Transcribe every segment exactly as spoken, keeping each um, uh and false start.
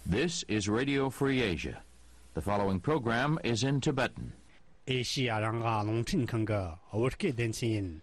This is Radio Free Asia. The following program is in Tibetan. ཨེ་ཤི་ཡ་རང་དབང་རླུང་འཕྲིན་ཁང་གི་བོད་སྐད་སྡེ་ཚན་ཡིན།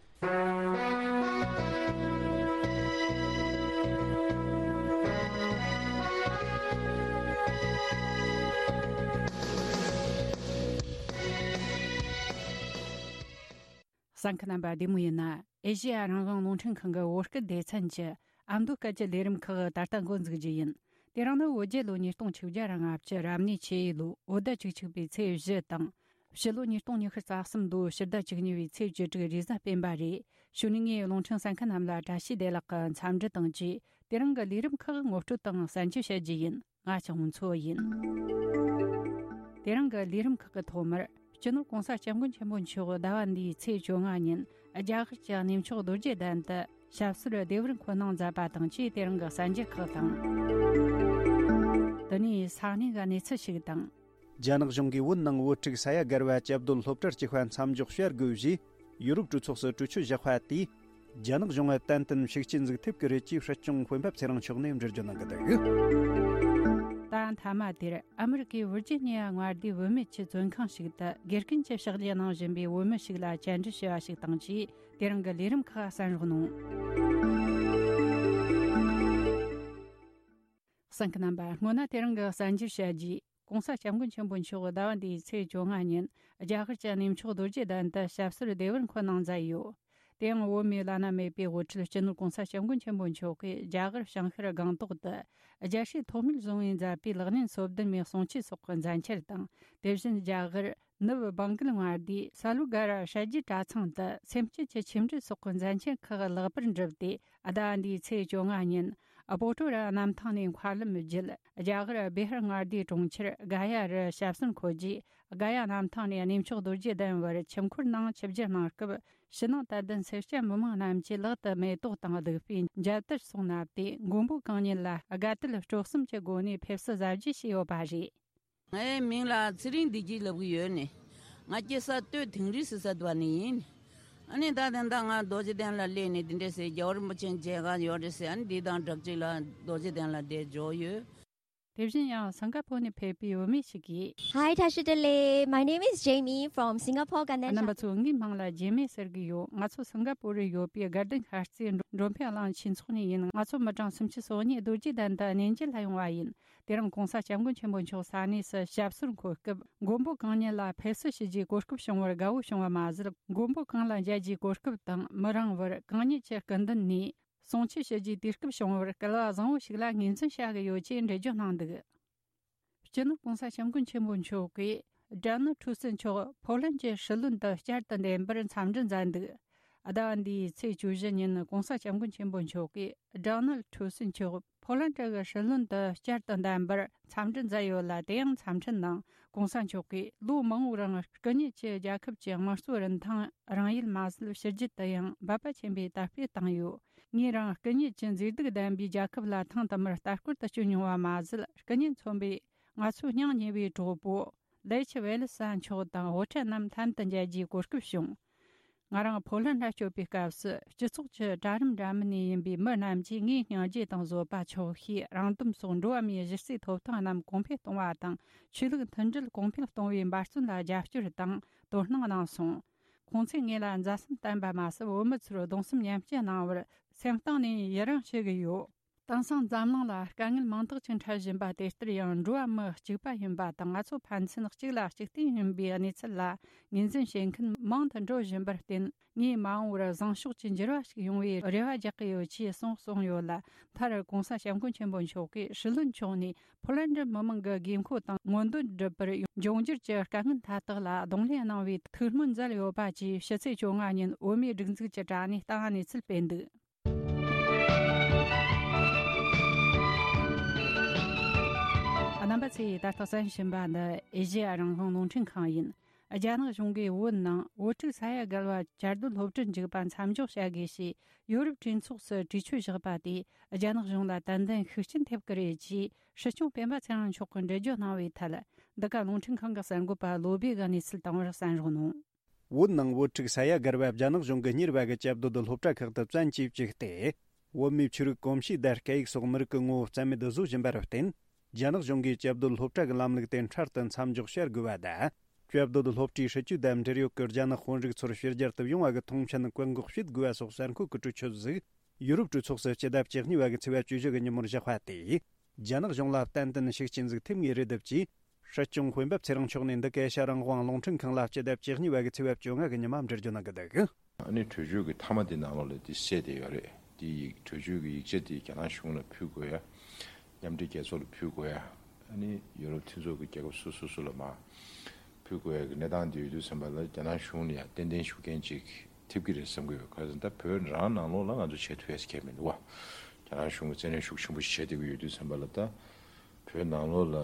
གསན་མཁན་རྣམ་པ་བདེ་མོ་ཡིན་ན། ཨེ་ཤི་ཡ་རང་དབང་རླུང་འཕྲིན་ཁང་གི་བོད་སྐད་སྡེ་ཚན་གྱི་ཨ་མདོ་སྐད་ཀྱི་ལས་རིམ་ཁག་ད་ལྟ་འགོ་འཛུགས་རྒྱུ་ཡིན། དེ་རིང་ནི་བོད་རྒྱལ་ལོ་ཉིས་སྟོང་ཆིག་བརྒྱ་ར་ལྔ་བཅུ་རབ་གནས་ཆུ་ཡོས་ལོའི་བོད་ཟླ་བཅུ་གཅིག་པའི་ཚེས་བཞི་དང་། ཕྱི་ལོ་ཉིས་སྟོང་ཉི་ཤུ་རྩ་གསུམ་ལོའི་ཕྱི་ཟླ་བཅུ་གཉིས་པའི་ཚེས་བཅུ་དྲུག་རེས་གཟའ་སྤེན་པ་རེད། གཞུག་ནས་ངས་རླུང་འཕྲིན་གསན་མཁན་རྣམས་ལ་བཀྲ་ཤིས་བདེ་ལེགས་ཀྱི་འཚམས་འདྲི་དང་བཅས། དེ་རིང་གི་ལས་རིམ་ཁག་ངོ་སྤྲོད་དང་གསན་རྒྱུ་བྱ་རྒྱུ་ཡིན། ང་ལྕགས་མོ་མཚོ་ཡིན། དེ་རིང་གི་ལས་རིམ་ཁག་གི་ཐོག་མར། སྤྱི་ནོར་༸གོང་ས་༸སྐྱབས་མགོན་ཆེན་པོ་མཆོག་ཟླ་བ་འདིའི་ཚེས་བཅོ་ལྔ་ཉིན་རྒྱ་གར་གྱི་གནས་མཆོག་རྡོ་རྗེ་གདན་དུ་ཞབས་སོར་བདེ་བར་འཁོད་གནང་མཛད་པ་དང་བཅས། དེ་རིང་གི་གསན་རྒྱུ་ཁག་དང་། དེ་ནས་ས་གནས་ཀྱི་གནས་ཚུལ་ཞིག་དང་། རྒྱ་ནག་གཞུང་གིས་བོད་ནང་བོད་ཕྲུག་ས་ཡ་བརྒལ་བ་བཅའ་སྡོད་སློབ་གྲྭར་བསྐྱོད་པ་མཚམས་འཇོག་བྱ་དགོས་ཞེས་ཡུ་རོབ་གྲོས་ཚོགས་སུ་གྲོས་ཆོད་བཞག་པ་དེས། རྒྱ་ནག་གཞུང་ལ་ཏན་ཏན་ཤུགས་རྐྱེན་ཟིག་ཐེབས་ཀྱི་རེད་ཅེས་སྲིད་སྐྱོང་སྤེན་པ་ཚེ་རིང་མཆོག་ནས་འགྲེལ་བརྗོད་གནང་གི་འདུག་ད་མཐའ་མ་དེར་ཨ་མི་རི་ཀའི་ཝིར་ཇི་ནི་ཡ་མངའ་སྡེའི་བུད་མེད་ཀྱི་བཙོན་ཁང་ཞིག་ཏུ་དགེ་རྒན་གྱི་ཕྱག་བཞེས་གནང་བཞིན་པའི་བུད་མེད་ཞིག་ལ་བཅར་འདྲི་ཞུས་པ་ཞིག་དང་བཅས། དེ་རིང་གི་ལས་རིམ་ཁག་གསན་རོགས་གནང་། གསན་མཁན་རྣམ་པ། སྔོན་ན་དེ་རིང་གི་གསན་རྒྱུ་བྱ་རྒྱུ། ༸གོང་ས་༸སྐྱབས་མགོན་ཆེན་པོ་མཆོག་ཟླ་བ་འདིའི་ཚེས་བཅོ་ལྔ་ཉིན་རྒྱ་གར་གྱི་གནས་མཆོག་རྡོ་རྗེ་གདན་དུ་ཞབས་སོར་བདེ་བར་འཁོད་གནང་མཛད་ཡོད། དེ་ཡང་བོད་མིའི་བླ་ན་མེད་པའི་དབུ་ཁྲིད་སྤྱི་ནོར་༸གོང་ས་༸སྐྱབས་མགོན་ཆེན་པོ་མཆོག་གིས་རྒྱ་གར་བྱང་ཤར་སྒང་ཏོག་ཏུ་རྒྱལ་སྲས་ཐོགས་མེད་བཟང་པོས་མཛད་པའི་ལག་ལེན་སོ་བདུན་མའི་གསུང་ཆོས་སོགས་ཀྱི་མཛད་འཆར་དང་། དེ་བཞིན་རྒྱ་གར་ནུབ་བང་གལ་མངའ་སྡེའི་ས་ལུ་ག་ར་ཧྲ་རྒྱུད་གྲྭ་ཚང་དུ་སེམས་བསྐྱེད་ཀྱི་ཆོས་འབྲེལ་སོགས་ཀྱི་མཛད་འཆར་ཁག་ལེགས་པར་འགྲུབ་སྟེ། ཟླ་བ་འདིའི་ཚེས་བཅོ་ལྔ་ཉིན་སྤོ་ཊོ་ར་གནམ་ཐང་ནས་མཁའ་ལམ་བརྒྱུད་རྒྱ་གར་བི་ཧར་མངའ་སྡེའི་གྲོང་ཁྱེར་ག་ཡ་རུ་ཞབས་སོར་འཁོད་རྗེས། ག་ཡ་གནམ་ཐང་ནས་གནས་མཆོག་རྡོ་རྗེ་གདན་བར་ཆིབས་འཁོར་ནང་ཆིབས་བསྒྱུར་གནང་སྐབས། ཕྱི་ནང་དད་ལྡན་སེར་སྐྱ་མི་མང་རྣམས་ཀྱིས་ལག་ཏུ་མེ་ཏོག་དང་བདུག་སྤོས་མཇལ་དར་སོགས་བསྣམས་ཏེ། མགོན་པོ་གང་ཉིད་ལ་དགའ་དད་སྤྲོ་གསུམ་གྱི་སྒོ་ནས་ཕེབས་བསུ་གཟབ་རྒྱས་བྱས་ཡོད་པ་རེད། ངའི་མིང་ལ་ཚེ་རིང་བདེ་སྐྱིད་ལབ་ཀྱི་ཡོད་ནི། ང་སྐྱེས་ས་སྟོད་དིང་རི་ཟེར་ས་དེ་བ་ནས་ཡིན། ཨ་ནི་ད་དེ་འདྲ་ང་རྡོ་རྗེ་གདན་ལ་སླེབས་ནས་དེ་འདྲ་ཟེར། རྒྱལ་བ་རིན་པོ་ཆེ་མཇལ་ཁ་ཡོད་རེད་ཟེར། ཨ་ནི་འདི་དང་སྦྲགས་ཅིག་ལ་རྡོ་རྗེ་གདན་ལ་བསྡད་འཇོག་ཡོད། དེ་བཞིན་ཡང་སིང་ག་པོར་ནས་ཕེབས་པའི་བུད་མེད་ཞིག་གིས། Hi, Tashi Delek. My name is Jamie from Singapore, Ganden. རྣམ་པ་ཚོ། ངའི་མིང་ལ་ཇེ་མི་ཟེར་གྱི་ཡོད། ང་ཚོ་སིང་ག་པོར་རུ་ཡོད་པའི་དགའ་ལྡན་ཤར་རྩེའི་འགྲོ་འགྲོ་ཕན་གླིང་ཆོས་ཚོགས་ནས་ཡིན། ང་ཚོ་མི་གྲངས་སུམ་ཅུ་སོ་གཉིས་རྡོ་རྗེ་གདན་དུ་གནས་མཇལ་ལ་ཡོང་བ་ཡིན། དེ་རིང་༸གོང་ས་༸སྐྱབས་མགོན་ཆེན་པོ་མཆོག་ས་གནས་སུ་ཞབས་སོར་འཁོད་སྐབས། མགོན་པོ་གང་ཉིད་ལ་ཕེབས་བསུ་ཞུ་རྒྱུའི་གོ་སྐབས་བྱུང་བར་དགའ་བོ་བྱུང་བ་མ་ཟད། མགོན་པོ་གང་ལ་མཇལ་རྒྱུའི་གོ་སྐབས་དང་། མི་རིང་བར་གང་ཉིད་ཀྱི་སྐུ་མདུན་ནས་གསུང་ཆོས་ཞུ་རྒྱུའི་དུས་སྐབས་བྱུང་བར་སྐལ་བ་བཟང་བོ་ཞིག་ལ་ངོས་འཛིན་བྱ་གི་ཡོད་ཅེས་འགྲེལ་བརྗོད་གནང་འདུག་སྤྱི་ནོར་༸གོང་ས་༸སྐྱབས་མགོན་ཆེན་པོ་མཆོག་གིས་ཌོ་ནལ་ཊུ་སི་མཆོག་ཕོ་ལན་གྱི་སྲིད་བློན་དུ་བསྐྱར་དུ་འདེམས་པར་འཚམས་འདྲི་མཛད་འདུག་ཟླ་བ་འདིའི་ཚེས་བཅུ་བཞི་ཉིན་༸གོང་ས་༸སྐྱབས་མགོན་ཆེན་པོ་མཆོག་གིས་ཌོ་ནལ་ཊུ་སི་མཆོག་ཕོ་ལན་གྱི་སྲིད་བློན་དུ་བསྐྱར་དུ་འདེམས་པར་འཚམས་འདྲི་མཛད་ཡོད་ལ། དེ་ཡང་འཚམས་འཕྲིན་ནང་༸གོང་ས་མཆོག་གིས་ལོ་མང་པོའི་རིང་སྐུ་ཉིད་ཀྱིས་རྒྱལ་ཁབ་ཀྱི་དམངས་གཙོའི་རིན་ཐང་རང་ཡུལ་མ་ཟད་ཕྱི་རྒྱལ་དུ་ཡང་འབད་པ་ཆེན་པོས་དར་སྤེལ་བཏང་ཡོད། ངས་རང་སྐུ་ཉིད་ཀྱི་མཛེས་སྡུག་ལྡན་པའི་རྒྱལ་ཁབ་ལ་ཐེངས་དུ་མར་ལྟ་སྐོར་དུ་བསྐྱོད་མྱོང་བ་མ་ཟད། སྐུ་ཉིད་མཚོན་པའི་ང་ཚོའི་སྙིང་ཉེ་བའི་གྲོགས་པོ་ལེ་ཆི་ཝེ་ལི་ས་མཆོག་དང་དབུ་ཁྲིད་རྣམས་ལྷན་དུ་མཇལ་རྒྱུའི་གོ་སྐབས་བྱུང་། ང་རང་ཕོ་ལན་ལ་བསྐྱོད་པའི་སྐབས་སུ། སྤྱི་ཚོགས་ཀྱི་གྲལ་རིམ་འདྲ་མིན་ནས་ཡིན་པའི་མི་རྣམས་ཀྱིས་ངའི་སྙིང་རྗེ་དང་བཟོད་པ། ཆོག་ཤེས། རང་དོན་སོགས་འགྲོ་བ་མིའི་གཞི་རྩའི་ཐོབ་ཐང་རྣམས་གོང་འཕེལ་གཏོང་བ་དང་། ཆོས་ལུགས་མཐུན་སྒྲིལ་གོང་འཕེལ་གཏོང་བའི་འབད་བརྩོན་ལ་རྒྱབ་སྐྱོར་དང་དོ་སྣང་གནང་སོང་། ཁོང་ཚོས་ངེད་ལ་མཛའ་སེམས་བསྟན་པ་མ་ཟད། བོད་མི་ཚོར་གདུང་སེམས་མཉམ་སྐྱེད་གནང་བར་སེམས་གཏིང་ནས་ཡི་རང་ཞུ་གི་ཡོད། དེང་སང་འཛམ་གླིང་ལ་དཀའ་ངལ་མང་དག་ཅིག་འཕྲད་བཞིན་པ་དེ་ལྟར་ཡང་འགྲོ་བ་མི་གཅིག་པ་ཡིན་པ་དང་། ང་ཚོ་ཕན་ཚུན་གཅིག་ལ་གཅིག་བརྟེན་ཡིན་པའི་གནས་ཚུལ་ལ་ངོས་འཛིན་བྱེད་མཁན་མང་དུ་འགྲོ་བཞིན་པར་བརྟེན། ངས་མ་འོངས་པར་བཟང་ཕྱོགས་ཀྱི་འགྱུར་བ་ཞིག་ཡོང་བའི་རེ་བ་རྒྱག་གི་ཡོད་ཅེས་གསུངས་སོང་ཡོད་ལ། མཐར་༸གོང་ས་༸སྐྱབས་མགོན་ཆེན་པོ་མཆོག་གིས་སྲིད་བློན་མཆོག་ནས་ཕོ་ལན་ཌི་མི་མང་གི་དགོས་མཁོ་དང་མངོན་འདོད་སྒྲུབ་པར་འབྱུང་འགྱུར་གྱི་དཀའ་ངལ་མཐའ་དག་ལ་གདོང་ལེན་གནང་བའི་ཐུགས་སྨོན་མཛད་ཡོད་པ་བཅས། ཕྱི་ཚེས་བཅོ་ལྔ་ཉིན་བོད་མིའི་སྒྲིག་འཛུགས་ཀྱི་དྲ་བ་ནས་ལྟ་བ་གནས་ཚུལ་སྤེལ་འདུག་རྣམ་པ་ཚོས་ད་ལྟ་གསན་བཞིན་པ་འདི་ཨེ་ཤེ་ཡ་རང་དབང་རླུང་འཕྲིན་ཁང་ཡིན། རྒྱ་ནག་གཞུང་གིས་བོད་ནང་བོད་ཕྲུག་ས་ཡ་བརྒལ་བ་བཅའ་སྡོད་སློབ་གྲྭར་འཇུག་པ་མཚམས་འཇོག་བྱ་དགོས་ཞེས་ཡོ་རོབ་གྲོས་ཚོགས་སུ་གྲོས་ཆོད་བཞག་པ་དེས་རྒྱ་ནག་གཞུང་ལ་ཏན་ཏན་ཤུགས་རྐྱེན་ཐེབས་ཀྱི་རེད་ཅེས་སྲིད་སྐྱོང་སྤེན་པ་ཚེ་རིང་མཆོག་གིས་འགྲེལ་བརྗོད་གནང་བའི་ཐད། འདི་ག་རླུང་འཕྲིན་ཁང་གི་གསར་འགོད་པ་བློ་བྷེ་གིས་གནས་ཚུལ་བཏང་བར་གསན་རོགས་གནང་། བོད་ནང་བོད་ཕྲུག་ས་ཡ་བརྒལ་བ་རྒྱ་ནག་གཞུང་གིས་གཉེར་བ་གི་བཅའ་སྡོད་སློབ་གྲྭ་ཁག་ཏུ་བཙན་གྱིས་བཅུག་སྟེ། བོད་མིའི་ཆོས་རིག་གོམས་གཤིས་དང་སྐད་ཡིག་སོགས་མི་རིགས་ཀྱི་ངོ་བོ་རྩ་མེད་བཟོ་བཞིན་པར་བརྟེན། རྒྱ་ནག་གཞུང་གིས་བཅའ་སྡོད་སློབ་གྲྭ་གི་ལམ་ལུགས་དེ་འཕྲལ་དུ་མཚམས་འཇོག་བྱ་དགོས་པ་དང་། བཅའ་སྡོད་སློབ་གྲྭའི་སྲིད་ཇུས་དང་འབྲེལ་ཡོད་ཀྱི་རྒྱ་ནག་དཔོན་རིགས་ཚོར་ཕྱི་རྒྱལ་དུ་ཡོང་བ་གི་མཐོང་མཆན་བཀག་འགོག་བྱེད་དགོས་པ་སོགས་གསར་འགོད་ཀྱི་གྲོས་ཆོད་ཟིག་ཡུ་རོབ་གྲོས་ཚོགས་སུ་སྤྱི་ཟླ་བཅུ་གཉིས་པ་གི་ཚེས་པ་བཅུ་བཞི་གི་ཉིན་མོར་བཞག་པ་དེས། རྒྱ་ནག་གཞུང་ལ་ཏན་ཏན་ཤུགས་རྐྱེན་ཟིག་ཐེབས་ངེས་རེད་འདུག་ཅེས། སྲིད་སྐྱོང་དཔོན་པོ་ཚེ་རིང་མཆོག་ནས་འདི་ག་ཨེ་ཤ་རང་དབང་རླུང་འཕྲིན་ཁང་ལ་སྤྱི་ཟླ་བཅུ་གཉིས་པ་གི་ཚེས་པ་བཅོ་ལྔ་གི་ཉི་མ་འགྲེལ་བརྗོད་གནང་གི་འདུག་ཨ་ནི་གྲོས་ཆོད་ཀྱི་མཐའ་མ་དེ་ནང་ལོགས་ལ་དེ་གསལ་བསྡད་ཡོད་རེད། དེ་ཡིག་གྲོས་ཆོད་ཀྱི་ཡིག་ཆ་དེ་རྒྱ་ནག་གཞུང་ལ་ཕུལ་དགོས་ཡ། མཉམ་འབྲེལ་རྒྱལ་ཚོགས་ལ་ཕུལ་དགོས་ཡ། ཨ་ནི་ཡུ་རོབ་མཐུན་ཚོགས་ཀྱི་རྒྱལ་ཁབ་སོ་སོ་སོ་ལ་མར་ཕུལ་དགོས་ཡ་གི་གནས་སྟངས་དེ་ཡོད་དུས་ཙམ་པ་ལ་རྒྱ་ནག་གཞུང་ལ་ཡང་ཏན་ཏན་ཤུགས་རྐྱེན་ཅིག་ཐེབས་ཀྱི་རེད་བསམ་གྱི་ཡོད། ག་རེ་ཟེར་ན་ད་བོད་རང་ནང་ལོགས་ལ་ང་ཚོ་བྱེད་ཐུབ་ཡ་ཟེར་མཁན་མི་འདུག་བ། རྒྱ་ནག་གཞུང་གིས་བཙན་གནོན་ཤུགས་ཆེན་པོ་ཞིག་བྱས་བསྡད་ཀྱི་ཡོད་དུས་ཙམ་པ་ལ་ད་བོད་ནང་ལོགས་ལ་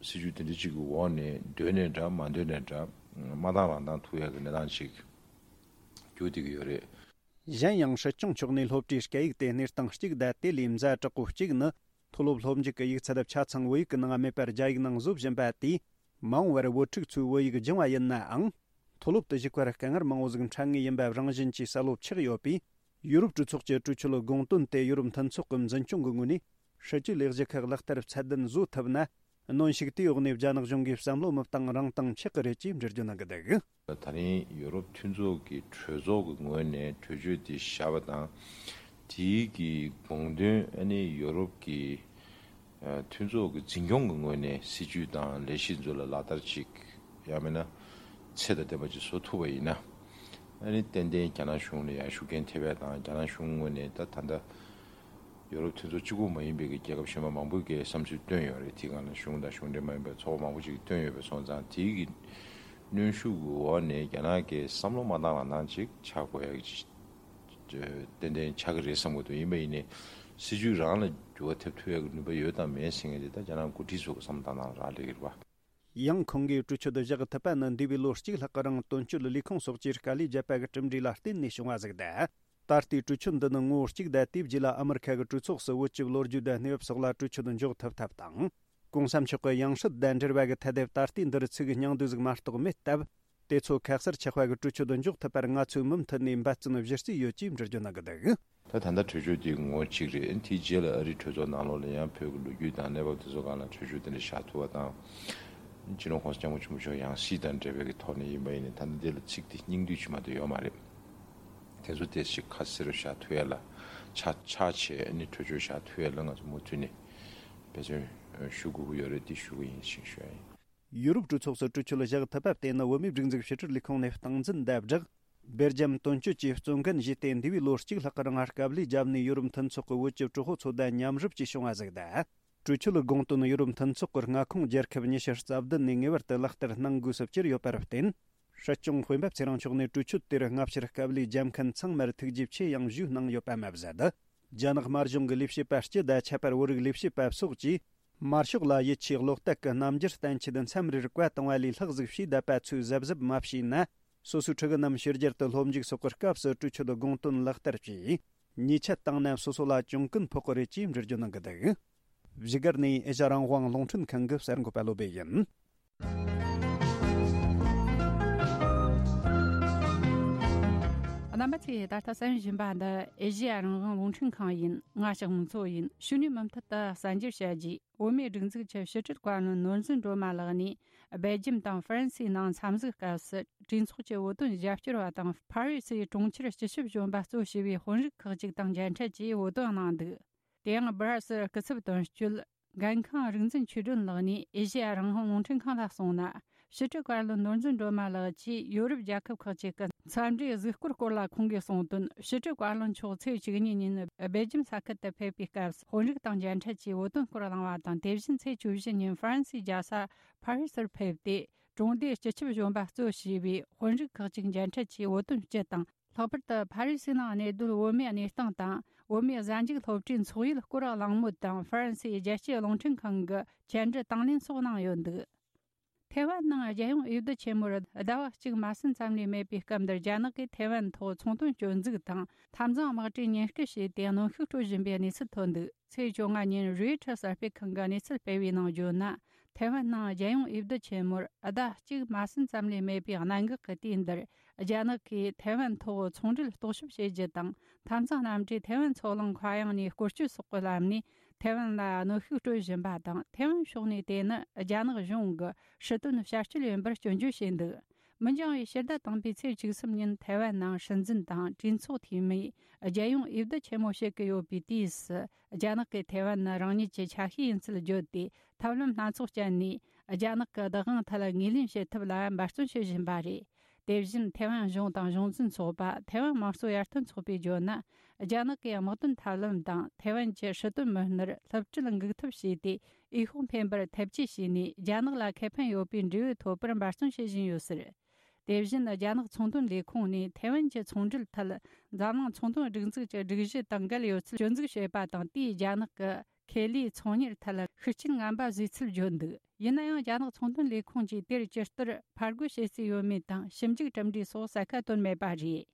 སྲིད་ཇུས་དེ་འདྲ་ཅིག་གི་འོག་ནས་འདོད་ནའི་འདྲ་མ་འདོད་ནའི་འདྲ་མ་བཏང་རང་བཏང་ཐུབ་ཡ་གི་གནས་སྟངས་ཅིག་གྱུར་བསྡད་ཀྱི་ཡོད་རེད། གཞན་ཡང་སྲིད་སྐྱོང་མཆོག་ནས་སློབ་གྲྭའི་སྐད་ཡིག་དེ་གནས་སྟངས་གཅིག་དང་དེ་ལས་ཛ་དྲག་པོ་གཅིག་ནི། མཐོ་སློབ་སློབ་འཇུག་གི་ཡིག་ཚད་ཆ་ཚང་བོད་ཡིག་གི་ནང་མེད་པར་རྒྱ་ཡིག་ནང་བཟོ་བཞིན་པ་དེས། མ་འོངས་པར་བུ་ཕྲུག་ཚོས་བོད་ཡིག་སྦྱང་བ་ཡིན་ནའང་། མཐོ་སློབ་ཏུ་ཞུགས་པར་དཀའ་ངལ་མང་བོ་ཟིག་འཕྲད་ངེས་ཡིན་པ་རང་བཞིན་གྱིས་གསལ་བོ་ཆགས་ཡོད་པས། ཡུ་རོབ་གྲོས་ཚོགས་ཀྱི་གྲོས་ཆོད་དགོངས་དོན་དེ་ཡུ་རོབ་མཐུན་ཚོགས་ཀྱི་འཛིན་སྐྱོང་གི་ངོས་ནས། སྲིད་ཇུས་ལས་གཞི་ཁག་ལག་བསྟར་ཚད་ལྡན་བཟོ་ཐུབ་ན། གནོན་ཤུགས་དེའི་འོག་ནས་རྒྱ་ནག་གཞུང་གིས་བསམ་བློ་མི་བཏང་རང་བཏང་ཆགས་ཀྱི་རེད་ཅེས་འགྲེལ་བརྗོད་གནང་གི་འདུག་ད་རིང་ཡུ་རོབ་མཐུན་ཚོགས་ཀྱི་གྲོས་ཚོགས་ཀྱི་ངོས་ནས་གྲོས་ཆོད་དེ་བཞག་པ་དང་། དེའི་གི་དགོངས་དོན་ཨ་ནི་ཡུ་རོབ་ཀྱི་ཨ་མཐུན་ཚོགས་ཀྱི་འཛིན་སྐྱོང་གི་ངོས་ནས་སྲིད་ཇུས་དང་ལས་གཞི་ཚོ་ལ་ལག་བསྟར་ཅིག་ཡང་མིན་ན་ཚད་དང་ལྡན་པ་ཅིག་བཟོ་ཐུབ་པ་ཡིན་ན། ཨ་ནི་ཏན་ཏན་རྒྱ་ནག་གཞུང་ལ་ཡང་ཤུགས་རྐྱེན་ཐེབས་ཡ་དང་རྒྱ་ནག་གཞུང་ངོས་ནས་ད་ད་ལྟ། ཡོ་རོབ་མཐུན་ཚོགས་གཅིག་པུ་མ་ཡིན་པའི་གི་རྒྱལ་ཁབ་གཞན་པ་མང་པོས་གི་བསམ་ཚུལ་བཏོན་ཡོད་རེད། དེའི་སྒང་ལ་གཞུང་དང་གཞུང་འབྲེལ་མ་ཡིན་པའི་ཚོགས་པ་མང་པོ་ཅིག་གིས་བཏོན་ཡོད་པ་སོང་ཙང་། དེའི་གི་གནོན་ཤུགས་ཀྱི་འོག་ནས་རྒྱ་ནག་གི་བསམ་བློ་མ་བཏང་རང་བཏང་ཅིག་ཆགས་དགོས་ཡ་གི་ཏན་ཏན་ཆགས་ཀྱི་རེད་བསམ་གི་འདུག་ཡིན་པ་ཡིན་ནའི་སྲིད་ཇུས་རང་ལ་འགྱུར་བ་ཐེབས་ཐུབ་ཡ་གི་ནུས་པ་ཡོད་དམ་མེད་ཟེར་མཁན་དེ་ད་རྒྱ་ནག་འགོ་ཁྲིད་ཚོ་གི་བསམ་བློ་བཏང་སྟངས་རག་ལས་ཀྱི་རེད་བ། ཡང་ཁོང་གིས་གྲོས་ཆོད་བཞག་ཐུབ་པ་ནི་འདས་པའི་ལོ་གཅིག་ལྷག་གི་རིང་དོན་གཅོད་ལས་ཁུངས་སོགས་ཀྱིས་དཀའ་ལས་བརྒྱབ་པ་གི་གྲུབ་འབྲས་ལ་བརྟེན་ནས་བྱུང་བ་ཟིག་དང་། ད་ལྟའི་གྲོས་ཆོད་འདི་ནི་ངོ་བོ་གཅིག་དང་། དེའི་རྗེས་ལ་ཨ་མི་རི་ཁ་གི་གྲོས་ཚོགས་སུ་བོད་ཀྱི་ལོ་རྒྱུས་དང་གནས་བབ་སོགས་ལ་གྲོས་ཆོད་འཇོག་ཐུབ་ཐབས་དང་། གོང་ས་མཆོག་གི་ཡང་སྲིད་དང་འབྲེལ་བ་གི་ཐད་དེ་ད་ལྟའི་འདིར་ཚིག་སྙིང་བསྡུས་ཟིག་མ་གཏོགས་མེད་སྟབས། དེ་ཚོ་ཁ་གསལ་ཆགས་པ་གི་གྲོས་ཆོད་འཇོག་ཐུབ་པར་ང་ཚོས་མུ་མཐུད་ནས་འབད་བརྩོན་གཞི་རྩའི་ཡོད་ཅེས་འགྲེལ་བརྗོད་གནང་གི་འདུག་ད་ད་ལྟ་གྲོས་ཆོད་དེ་ངོ་གཅིག་རེད། དེའི་རྗེས་ལ་ཨ་རིའི་གྲོས་ཚོགས་ནང་ལོགས་ལ་ཡང་བོད་ཀྱི་ལོ་རྒྱུས་དང་གནས་བབ་དེ་ཚོ་སྒང་ལ་གྲོས་ཆོད་དེ་འདྲ་བཞག་ཐུབ་པ་དང་། སྤྱི་ནོར་༸གོང་ས་༸སྐྱབས་མགོན་ཆེན་པོ་མཆོག་ཡང་སྲིད་དང་འབྲེལ་བའི་གི་ཐོག་ནས་ཡིན་པ་ཡིན་ནའི་ད་ལྟ་དེ་ལ་ཚིག་དེ་སྙིང་བསྡུས་ཅིག་མ་གཏོགས་ཡོད་མ་རེད། དེ་ཚོ་དེ་ཞིག་ཁ་གསལ་རུ་བཞག་ཐུབ་ཡ་ལ་ཆ་ཆ་བྱས་ནས་གྲོས་ཆོད་བཞག་ཐུབ་ཡ་ལ་ང་ཚོ་མུ་མཐུད་ནས་འབད་བརྩོན་ཞུ་དགོས་ཀྱི་ཡོད་རེད། དེ་ཞུ་གི་ཡིན་ཞེས་ཞུ་ཡ་ཡིན། ཡུ་རོབ་གྲོས་ཚོགས་སུ་གྲོས་ཆོད་བཞག་ཐུབ་པ་དེ་ནི་བོད་མིའི་སྒྲིག་འཛུགས་ཕྱི་དྲིལ་ལས་ཁུངས་ནས་སྟངས་འཛིན་དང་སྦྲགས། སྦེལ་ཇམ་དོན་གཅོད་ཀྱིས་གཙོ་འགན་བཞེས་ཏེ། འདས་པའི་ལོ་གཅིག་ལྷག་གི་རིང་དཀའ་ལས་བརྒྱབ་ནས་ཡུ་རོབ་མཐུན་ཚོགས་ཀྱི་བོད་ཀྱི་གྲོས་ཚོགས་ཚོ་དང་མཉམ་རུབ་ཀྱིས་བྱུང་བ་ཟིག་དང་། གྲོས་ཆོད་ལ་དགོངས་དོན་ཡུ་རོབ་མཐུན་ཚོགས་ཀྱི་མངའ་ཁོངས་རྒྱལ་ཁབ་ཉི་ཤུ་རྩ་བདུན་ནས་ངེས་པར་དུ་ལག་བསྟར་གནང་དགོས་སུ་གྱུར་ཡོད་པར་བརྟེན། སྲིད་སྐྱོང་སྤེན་པ་ཚེ་རིང་མཆོག་ནས་གྲོས་ཆོད་དེར་སྔ་ཕྱིར་དཀའ་ལས་བརྒྱབ་མཁན་ཚང་མར་ཐུགས་རྗེ་ཆེ་ཡང་ཞུས་གནང་ཡོད་པ་མ་ཟད། རྒྱ་ནག་དམར་གཞུང་གི་ལས་བྱེད་པ་སྤྱི་དང་ཁྱད་པར་བོད་རིགས་ལས་བྱེད་པ་སོགས་ཀྱིས། དམར་ཤོག་ལ་ཡིད་ཆེས་བློ་གཏད་ཀྱི་རྣམ་འགྱུར་བསྟན་ཆེད་མཚམས་རེར་བཀའ་བཏང་བ་ལས་ལྷག་ཟིག་བྱས་བསྡད་པ་ཚོས་གཟབ་གཟབ་མ་བྱས་ན། སོ་སོའི་ཕྲུ་གུ་རྣམས་ཕྱི་རྒྱལ་དུ་སློབ་འཇུག་སོགས་ཀྱི་སྐབས་སུ་གྲོས་ཆོད་དགོངས་དོན་ལག་བསྟར་གྱིས། ཉེས་ཆད་བཏང་ན་སོ་སོ་ལ་གྱོང་གུན་ཕོག་གི་རེད་ཅེས་འགྲེལ་བརྗོད་གནང་གི་འདུག་བཞུགས་སྒར་ནས་ཨེ་ཤ་རང་དབང་རླུང་འཕྲིན་ཁང་གི་གསར་འགོད་པ་བློ་བྷེ་ཡིན། རྣམ་པ་ཚོས་ད་ལྟ་གསན་བཞིན་པ་འདི་ཨེ་ཤེ་ཡ་རང་དབང་རླུང་འཕྲིན་ཁང་ཡིན། ང་ཞག་མང་ཚོ་ཡིན། ཕྱི་ནས་མུ་མཐུད་དུ་གསར་འགྱུར་བཤད་རྒྱུ། བོད་མིའི་སྒྲིག་འཛུགས་ཀྱི་ཕྱི་དྲིལ་བཀའ་བློན་ནོར་འཛིན་སྒྲོལ་མ་ལགས་ནས་སྦེལ་ཇམ་དང་ཧྥ་རན་སིའི་ནང་འཚམས་གཟིགས་སྐབས་སུ་གྲོས་ཚོགས་ཀྱི་བོད་དོན་རྒྱབ་སྐྱོར་བ་དང་ཕ་རི་སིའི་གྲོང་ཁྱེར་སྤྱི་ཁྱབ་གཞོན་པ་གཙོ་བྱས་པའི་དཔོན་རིགས་ཁག་ཅིག་དང་མཇལ་འཕྲད་ཀྱིས་བོད་དོན་གནང་འདུག་དེ་ཡང་སྦི་ར་སིལ་སྐུ་ཚབ་དོན་གཅོད་འགན་ཁང་རིག་འཛིན་ཆོས་སྒྲོན་ལགས་ནས་ཨེ་ཤེ་ཡ་རང་དབང་རླུང་འཕྲིན་ཁང་ལ་གསུངས་ན། ཕྱི་དྲིལ་བཀའ་བློན་ནོར་འཛིན་སྒྲོལ་མ་ལགས་ཀྱིས་ཡོ་རོབ་རྒྱལ་ཁབ་ཁག་ཅིག་གི་འཚམས་འདྲིའི་གཟིགས་སྐོར་སྐོར་ལ་ཁོང་གིས་གསུངས་དོན། ཕྱི་དྲིལ་བཀའ་བློན་མཆོག་ཚེས་བཅུ་གཉིས་ཉིན་སྦེལ་ཇམ་ས་ཁུལ་དུ་ཕེབས་པའི་སྐབས་དཔོན་རིགས་དང་མཇལ་འཕྲད་ཀྱིས་བོད་དོན་སྐོར་གླེང་བ་དང་། དེ་བཞིན་ཚེས་བཅུ་བཞི་ཉིན་ཧྥ་རན་སིའི་རྒྱལ་ས་ཕ་རི་སར་ཕེབས་ཏེ། གྲོང་སྡེའི་སྤྱི་ཁྱབ་གཞོན་པ་གཙོ་བྱས་པའི་དཔོན་རིགས་ཁག་ཅིག་མཇལ་འཕྲད་ཀྱིས་བོད་དོན་སྤྱི་དང་། ལྷག་པར་དུ་ཕ་རི་སི་ནང་གནས་སྡོད་བོད་མིའི་གནས་སྟངས་དང་། བོད་མིའི་གཟའ་མཇུག་སློབ་གྲྭའི་འཚོགས་ཡུལ་སྐོར་གླེང་མོལ་དང་། ཧྥ་རན་སིའི་རྒྱལ་སྤྱིའི་རླུང་འཕྲིན་ཁང་གི་བཅར་འདྲི་དང་ལེན་སོགས་གནང་ཡོད་འདུག་ཐའེ་ཝན་ནང་རྒྱལ་ཡོངས་འོས་བསྡུ་ཆེན་མོར་ཟླ་བ་གཅིག་མ་ཟིན་ཙམ་ལས་མེད་པའི་སྐབས་འདིར། རྒྱ་ནག་གིས་ཐའེ་ཝན་ཐོག་ཚོང་དོན་སྐྱོན་འཛུགས་དང་། འཐབ་འཛིང་དམག་གྲུའི་ཉེན་བཀུར་བྱས་ཏེ། གནོན་ཤུགས་སྤྲོད་བཞིན་པའི་གནས་ཚུལ་ཐོན་འདུག་ཚེས་བཅོ་ལྔ་ཉིན་རོའི་ཊར་གསར་སྤེལ་ཁང་གིས་གནས་ཚུལ་སྤེལ་བའི་ནང་བརྗོད་ན། ཐའེ་ཝན་ནང་རྒྱལ་ཡོངས་འོས་བསྡུ་ཆེན་མོར་ཟླ་གཅིག་མ་ཟིན་ཙམ་ལས་མེད་པའི་གནད་འགག་གི་དུས་འདིར། རྒྱ་ནག་གིས་ཐའེ་ཝན་ཐོག་ཚོང་འབྲེལ་རྟོག་ཞིབ་བྱེད་རྒྱུ་དང་། འཐབ་འཛིང་གནམ་གྲུས་ཐའེ་ཝན་མཚོ་གླིང་མཁའ་དབྱིངས་ནས་སྐོར་སྐྱོད་སོགས་ཀྱི་ལམ་ནས་ ཐའེ་ཝན་ལ་གནོན་ཤུགས་སྤྲོད་བཞིན་པ་དང་། ཐའེ་ཝན་ཕྱོགས་ནས་དེ་ནི་རྒྱ་ནག་གཞུང་གི་སྲིད་དོན་བྱ་སྤྱོད་ཡིན་པར་སྐྱོན་བརྗོད་བྱས་འདུག་མི་འགྱངས་པའི་ཕྱི་ཟླ་དང་པོའི་ཚེས་བཅུ་གསུམ་ཉིན་ཐའེ་ཝན་ནང་སྲིད་འཛིན་དང་གྲོས་ཚོགས་འཐུས་མིས་རྒྱལ་ཡོངས་འོས་བསྡུ་ཆེན་མོ་བྱེད་ཀྱི་ཡོད་པའི་དུས་སུ། རྒྱ་ནག་གིས་ཐའེ་ཝན་ནི་རང་ཉིད་ཀྱི་ཆ་ཤས་ཡིན་ཚུལ་བརྗོད་དེ། ཐབས་ལམ་སྣ་ཚོགས་སྤྱད་ནས་རྒྱ་ནག་གི་བདག་དབང་ཐད་ངོས་ལེན་བྱེད་ཐབས་ལ་འབད་བརྩོན་བྱེད་བཞིན་པ་རེད། དེ་བཞིན་ཐའེ་ཝན་གཞུང་དང་གཞུང་འཛིན་ཚོགས་པ། ཐའེ་ཝན་དམངས་གཙོ་ཡར་ཐོན་ཚོགས་པས་བརྗོད་ན། རྒྱ་ནག་གི་དམག་དོན་ཐབས་ལམ་དང་ཐའེ་ཝན་གྱི་སྲིད་དོན་མི་སྣར་སློབ་ཁྲིད་འགུག་ཐབས་བྱས་ཏེ། འོས་ཤོག་འཕེན་པར་ཐབས་ཇུས་བྱས་ནས། རྒྱ་ནག་ལ་ཁེ་ཕན་ཡོད་པའི་འབྲས་བུ་ཐོབ་པར་འབད་བརྩོན་བྱེད་བཞིན་ཡོད་ཟེར། དེ་བཞིན་རྒྱ་ནག་ཚོང་དོན་ལས་ཁུངས་ནས་ཐའེ་ཝན་གྱི་ཚོང་འབྲེལ་ཐད། འཛམ་གླིང་ཚོང་དོན་སྒྲིག་འཛུགས་ཀྱི་སྒྲིག་གཞི་དང་འགལ་ཡོད་ཚུལ་སྐྱོན་འཛུགས་བྱས་པ་དང་། དེས་རྒྱ་ནག་གི་ཁེ་ལས་ཚོང་གཉེར་ཐད་ཤུགས་རྐྱེན་ངན་པ་བཟོས་ཚུལ་བརྗོད་འདུག་ཡིན་ན་ཡང་། རྒྱ་ནག་ཚོང་དོན་ལས་ཁུངས་ཀྱིས་དེར་ཇི་ལྟར་ཕར་རྒོལ་བྱེད་རྩིས་ཡོད་མེད་དང་། ཞིབ་འཇུག་གྲུབ་འབྲས་སོགས་གསལ་ཁ་བཏོན་མེད་པ་རེད།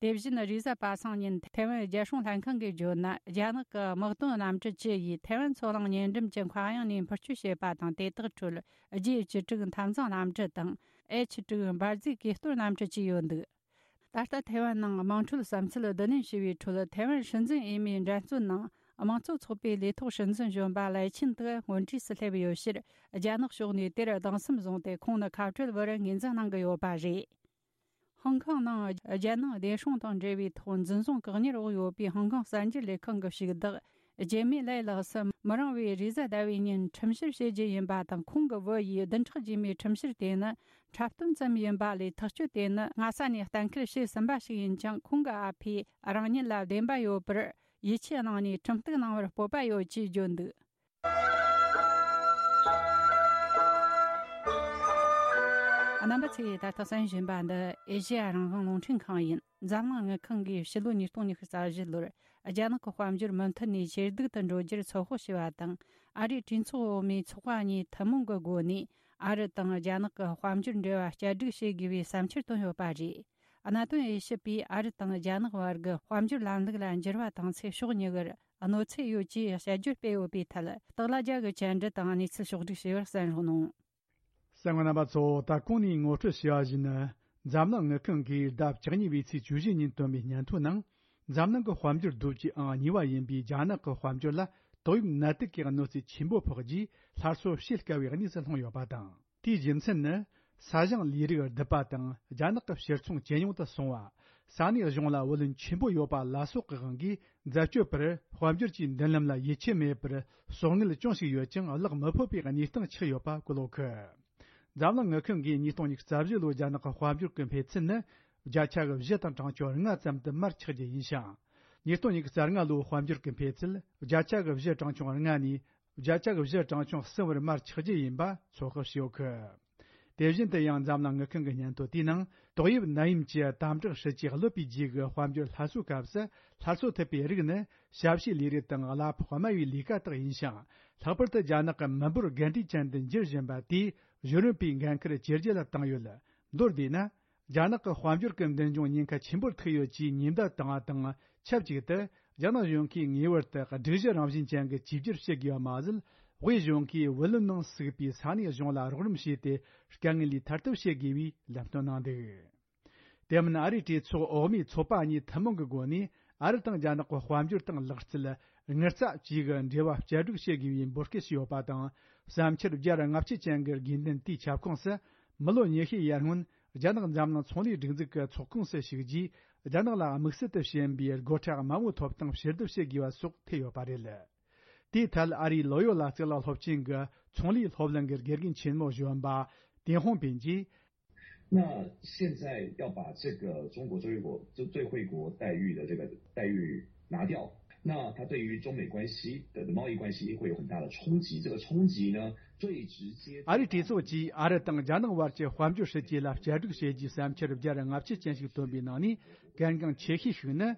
དེ་བཞིན་རེས་གཟའ་པ་སངས་ཉིན་ཐའེ་ཝན་རྒྱལ་སྲུང་ལྷན་ཁང་གིས་བརྗོད་ན། རྒྱ་ནག་གི་དམག་དོན་གནམ་གྲུ་བཅུ་ཡིས་ཐའེ་ཝན་མཚོ་གླིང་ཉེ་འགྲམ་གྱི་མཁའ་དབྱིངས་ནས་འཕུར་སྐྱོད་བྱས་པ་དང་། དེ་དག་ཁྲོད་ཇེ་བཅུ་དྲུག་འཐབ་འཛིང་གནམ་གྲུ་དང་ཨེཆ་དྲུག་འབར་རྫས་གས་གཏོར་གནམ་གྲུ་བཅས་ཡོད་འདུག་ད་ལྟ་ཐའེ་ཝན་ནང་དམངས་ཁྲོད་བསམ་ཚུལ་བསྡུ་ལེན་བྱས་པའི་ཁྲོད། ཐའེ་ཝན་སྲིད་འཛིན་འོས་མིའི་འགྲན་རྩོད་ནང་དམངས་གཙོ་ཚོགས་པའི་ལས་ཐོག་སྲིད་འཛིན་གཞོན་པ་ལའེ་ཆིན་ཏེ་སྔོན་གྲས་སུ་སླེབས་ཡོད་ཕྱིར། རྒྱ་ནག་ཕྱོགས་ནས་དེར་གདུང་སེམས་བཟུང་སྟེ། ཁོང་ནི་ཁ་བྲལ་བར་ངོས་འཛིན་གནང་གི་ཡོད་པ་རེད། ཧང་ཀང་ནང་རྒྱལ་ནང་བདེ་སྲུང་དང་འབྲེལ་བའི་ཐོག་འཛིན་བཟུང་བཀག་ཉར་འོག་ཡོད་པའི་ཧང་ཀང་གསར་འགྱུར་ལས་ཁང་གི་ཞུགས་བདག་ཇེ་མི་ལའེ་ལགས་སུ་མི་རིང་བའི་རེས་གཟའ་ཟླ་བའི་ཉིན་ཁྲིམས་བཤེར་བྱེད་རྒྱུ་ཡིན་པ་དང་། ཁོང་གི་བུ་ཡིས་བདུན་ཕྲག་རྗེས་མའི་ཁྲིམས་བཤེར་དེ་ནི་འཁྲབ་སྟོན་ཙམ་ཡིན་པ་ལས། ཐག་གཅོད་དེ་ནི་སྔ་ས་ནས་གཏན་འཁེལ་བྱས་ཟིན་པ་ཞིག་ཡིན་ཀྱང་། ཁོང་གི་ཨ་ཕས་རང་ཉིད་ལ་བདེན་པ་ཡོད་པར་ཡིད་ཆེས་གནང་ནས་ཁྲིམས་གཏུག་གནང་བར་སྤོབས་པ་ཡོད་ཅེས་བརྗོད་འདུག་རྣམ་པ་ཚོས་ད་ལྟ་གསན་བཞིན་པ་འདི་ཨེ་ཤེ་ཡ་རང་དབང་རླུང་འཕྲིན་ཁང་ཡིན། འཛམ་གླིང་དངུལ་ཁང་གིས་ཕྱི་ལོ་ཉིས་སྟོང་ཉི་ཤུ་རྩ་བཞི་ལོར་རྒྱ་ནག་གི་དཔལ་འབྱོར་མུ་མཐུད་ནས་ཇེ་སྡུག་ཏུ་འགྲོ་རྒྱུར་ཚོད་དཔག་བྱས་པ་དང་། ཨ་རིའི་གྲོས་ཚོགས་འོག་མའི་ཚོགས་པ་གཉིས་ཐུན་མོང་གི་སྒོ་ནས་ཨ་རི་དང་རྒྱ་ནག་གི་དཔལ་འབྱོར་འབྲེལ་བ་བསྐྱར་སྒྲིག་བྱེད་དགོས་པའི་བསམ་འཆར་བཏོན་ཡོད་པ་རེད། གནད་དོན་དབྱེ་ཞིབ་པས་ཨ་རི་དང་རྒྱ་ནག་བར་གྱི་དཔལ་འབྱོར་ལམ་ལུགས་ལ་འགྱུར་བ་བཏང་ཚེ་ཕྱོགས་གཉིས་ཀར་གནོད་འཚེ་ཡོད་ཅེས་དཔྱད་བརྗོད་སྤེལ་ཡོད་པའི་ཐད། སྟག་ལྷ་རྒྱལ་གྱིས་བཅར་འདྲི་དང་གནས་ཚུལ་ཕྱོགས་བསྒྲིགས་བྱས་པར་གསན་རོགས་གནང་། གསན་མཁན་རྣམ་པ་ཚོ། ད་གོང་ནས་ངོ་སྤྲོད་བྱས་པ་བཞིན། འཛམ་གླིང་དངུལ་ཁང་གིས་ཟླ་བཅུ་གཉིས་པའི་ཚེས་བཅུ་བཞི་ཉིན་བཏོན་པའི་སྙན་ཐོ་ནང་། འཛམ་གླིང་གི་དཔལ་འབྱོར་རྡོ་རྗེ་ཨང་གཉིས་པ་ཡིན་པའི་རྒྱ་ནག་གི་དཔལ་འབྱོར་ལ། ཏོག་དབྱིབས་ནད་དུག་གི་གནོད་འཚེ་ཆེན་པོ་ཕོག་རྗེས། སླར་གསོ་བྱེད་དཀའ་བའི་གནས་སུ་ལྷུང་ཡོད་པ་དང་། དེའི་རྒྱུ་མཚན་ནི། ས་ཞིང་ལས་རིགས་རྡུད་པ་དང་། རྒྱ་ནག་གི་ཕྱིར་ཚོང་ཇེ་ཉུང་དུ་སོང་བ། ས་གནས་གཞུང་ལ་བུ་ལོན་ཆེན་པོ་ཡོད་པ་ལ་སོགས་ཀྱི་དབང་གིས། འཛད་སྤྱོད་པར་དཔལ་འབྱོར་གྱི་མདུན་ལམ་ལ་ཡིད་ཆེས་མེད་པར། གསོག་དངུལ་ཅུང་ཞིག་ཡོད་ཀྱང་། གླགས་མི་ཕོད་པའི་གནས་སྟངས་ཆགས་ཡོད་པ་གོ་ལོག་གི། འཛམ་གླིང་དངུལ་ཁང་གིས་ཉིས་སྟོང་ཉི་ཤུ་རྩ་བཞི་ལོའི་རྒྱ་ནག་གི་དཔལ་འབྱོར་གྱི་འཕེལ་ཚད་ནི། བརྒྱ་ཆ་གི་བཞི་དང་གྲངས་ཆུང་ལྔ་ཙམ་དུ་མར་ཆག་རྒྱུ་ཡིན་ཞིང་། ཉིས་སྟོང་ཉི་ཤུ་རྩ་ལྔ་ལོའི་དཔལ་འབྱོར་གྱི་འཕེལ་ཚད། བརྒྱ་ཆ་གི་བཞི་གྲངས་ཆུང་ལྔ་ནས། བརྒྱ་ཆ་གི་བཞི་གྲངས་ཆུང་གསུམ་བར་མར་ཆག་རྒྱུ་ཡིན་པ་ཚོད་དཔག་བྱས་ཡོད་གི། དེ་བཞིན་དུ་ཡང་། འཛམ་གླིང་དངུལ་ཁང་གི་སྙན་ཐོ་དེའི་ནང་། ཏོག་དབྱིབས་ནད་ཡམས་ཀྱི་དམ་དྲག་སྲིད་ཇུས་གློད་པའི་རྗེས་ཀྱི་དཔལ་འབྱོར་སླར་གསོའི་སྐབས་སུ། སླར་གསོ་ཐུབ་པའི་རིགས་ནི། ཞབས་ཞུའི་ལས་རིགས་དང་། གླ་ཕོགས་དམའ་བའི་ལས་ཀ་དག་ཡིན་ཞིང་། ལྷག་པར་དུ་རྒྱ་ནག་གི་མི་འབོར་རྒན་གྲས་ཅན་དུ་འགྱུར་བཞིན་པ་དེས། གཞོན་ནུ་པའི་འགན་འཁུར་ཇེ་ལྗིད་ལ་བཏང་ཡོད། མདོར་བསྡུས་ན། རྒྱ་ནག་གི་དཔལ་འབྱོར་གྱི་མདུན་ལྗོངས་ཉེན་ཁ་ཆེན་པོར་ཐུག་ཡོད་ཅེས་ཉེན་བརྡ་བཏང་བ་དང་ཆབས་ཅིག་ཏུ། རྒྱ་ནག་གཞུང་གིས་ངེས་པར་དུ་སྒྲིག་གཞི་རང་བཞིན་ཅན་གྱི་གཅིག་གྱུར་བྱེད་དགོས་པ་མ་ཟད། དབུས་གཞུང་གིས་བུ་ལོན་ནང་ཟུག་པའི་ས་གནས་གཞུང་ལ་རོགས་རམ་བྱས་ཏེ། དཀའ་ངལ་ལས་ཐར་ཐབས་བྱེད་དགོས་པའི་ལམ་སྟོན་གནང་འདུག་དེ་མིན། ཨ་རིའི་གྲོས་ཚོགས་འོག་མའི་ཚོགས་པ་གཉིས་ཐུན་མོང་གི་སྒོ་ནས། ཨ་རི་དང་རྒྱ་ནག་གི་དཔལ་འབྱོར་དང་ལག་རྩལ། དངུལ་རྩ་བཅས་ཀྱི་འབྲེལ་བ་བསྐྱར་སྒྲིག་བྱེད་དགོས་པའི་འབོད་སྐུལ་བྱས་ཡོད་པ་དང་། བསམ་འཆར་བརྒྱ་དང་ལྔ་བཅུ་ཅན་གྱི་དགོས་འདུན་དེའི་ཁྱབ་ཁོངས་སུ། མི་ལོ་ཉི་ཤུའི་ཡར་སྔོན། རྒྱ་ནག་འཛམ་གླིང་ཚོང་ལས་སྒྲིག་འཛུགས་ཀྱི་ཚོགས་ཁོངས་སུ་ཞུགས་རྗེས། རྒྱ་ནག་ལ་དམིགས་བསལ་དུ་ཞན་པའི་སྒོ་ཁྲལ་དམའ་བོའི་ཐོབ་ཐང་ཕྱིར་བསྡུ་བྱེད་དགོས་པ་སོགས་ཐེ་ཡོད་པ་རེད། དེའི་ཐད། ཨ་རིའི་ལོ་ཡོ་ལ་རྩེ་ལ་སློབ་ཆེན་གྱི་ཚོང་ལས་སློབ་གླིང་གི་དགེ་རྒན་ཆེན་མོ་གཞོན་པ་ཏེན་ཧོང་པིན་གྱིས། 那现在要把这个中国最惠国最最惠国待遇的这个待遇拿掉，那它对于中美关系的贸易关系会有很大的冲击。这个冲击呢，最直接。 ཨ་རིའི་གྲོས་ཚོགས་ཀྱིས་ཨ་རི་དང་རྒྱ་ནག་དབར་གྱི་དཔལ་འབྱོར་སྲིད་ཇུས་ལ་བསྐྱར་སྒྲིག་བྱེད་རྒྱུའི་བསམ་འཆར་བརྒྱ་དང་ལྔ་བཅུ་ཅན་ཞིག་བཏོན་པའི་ནང་ནས། གལ་འགངས་ཆེ་ཤོས་ཤིག་ནི།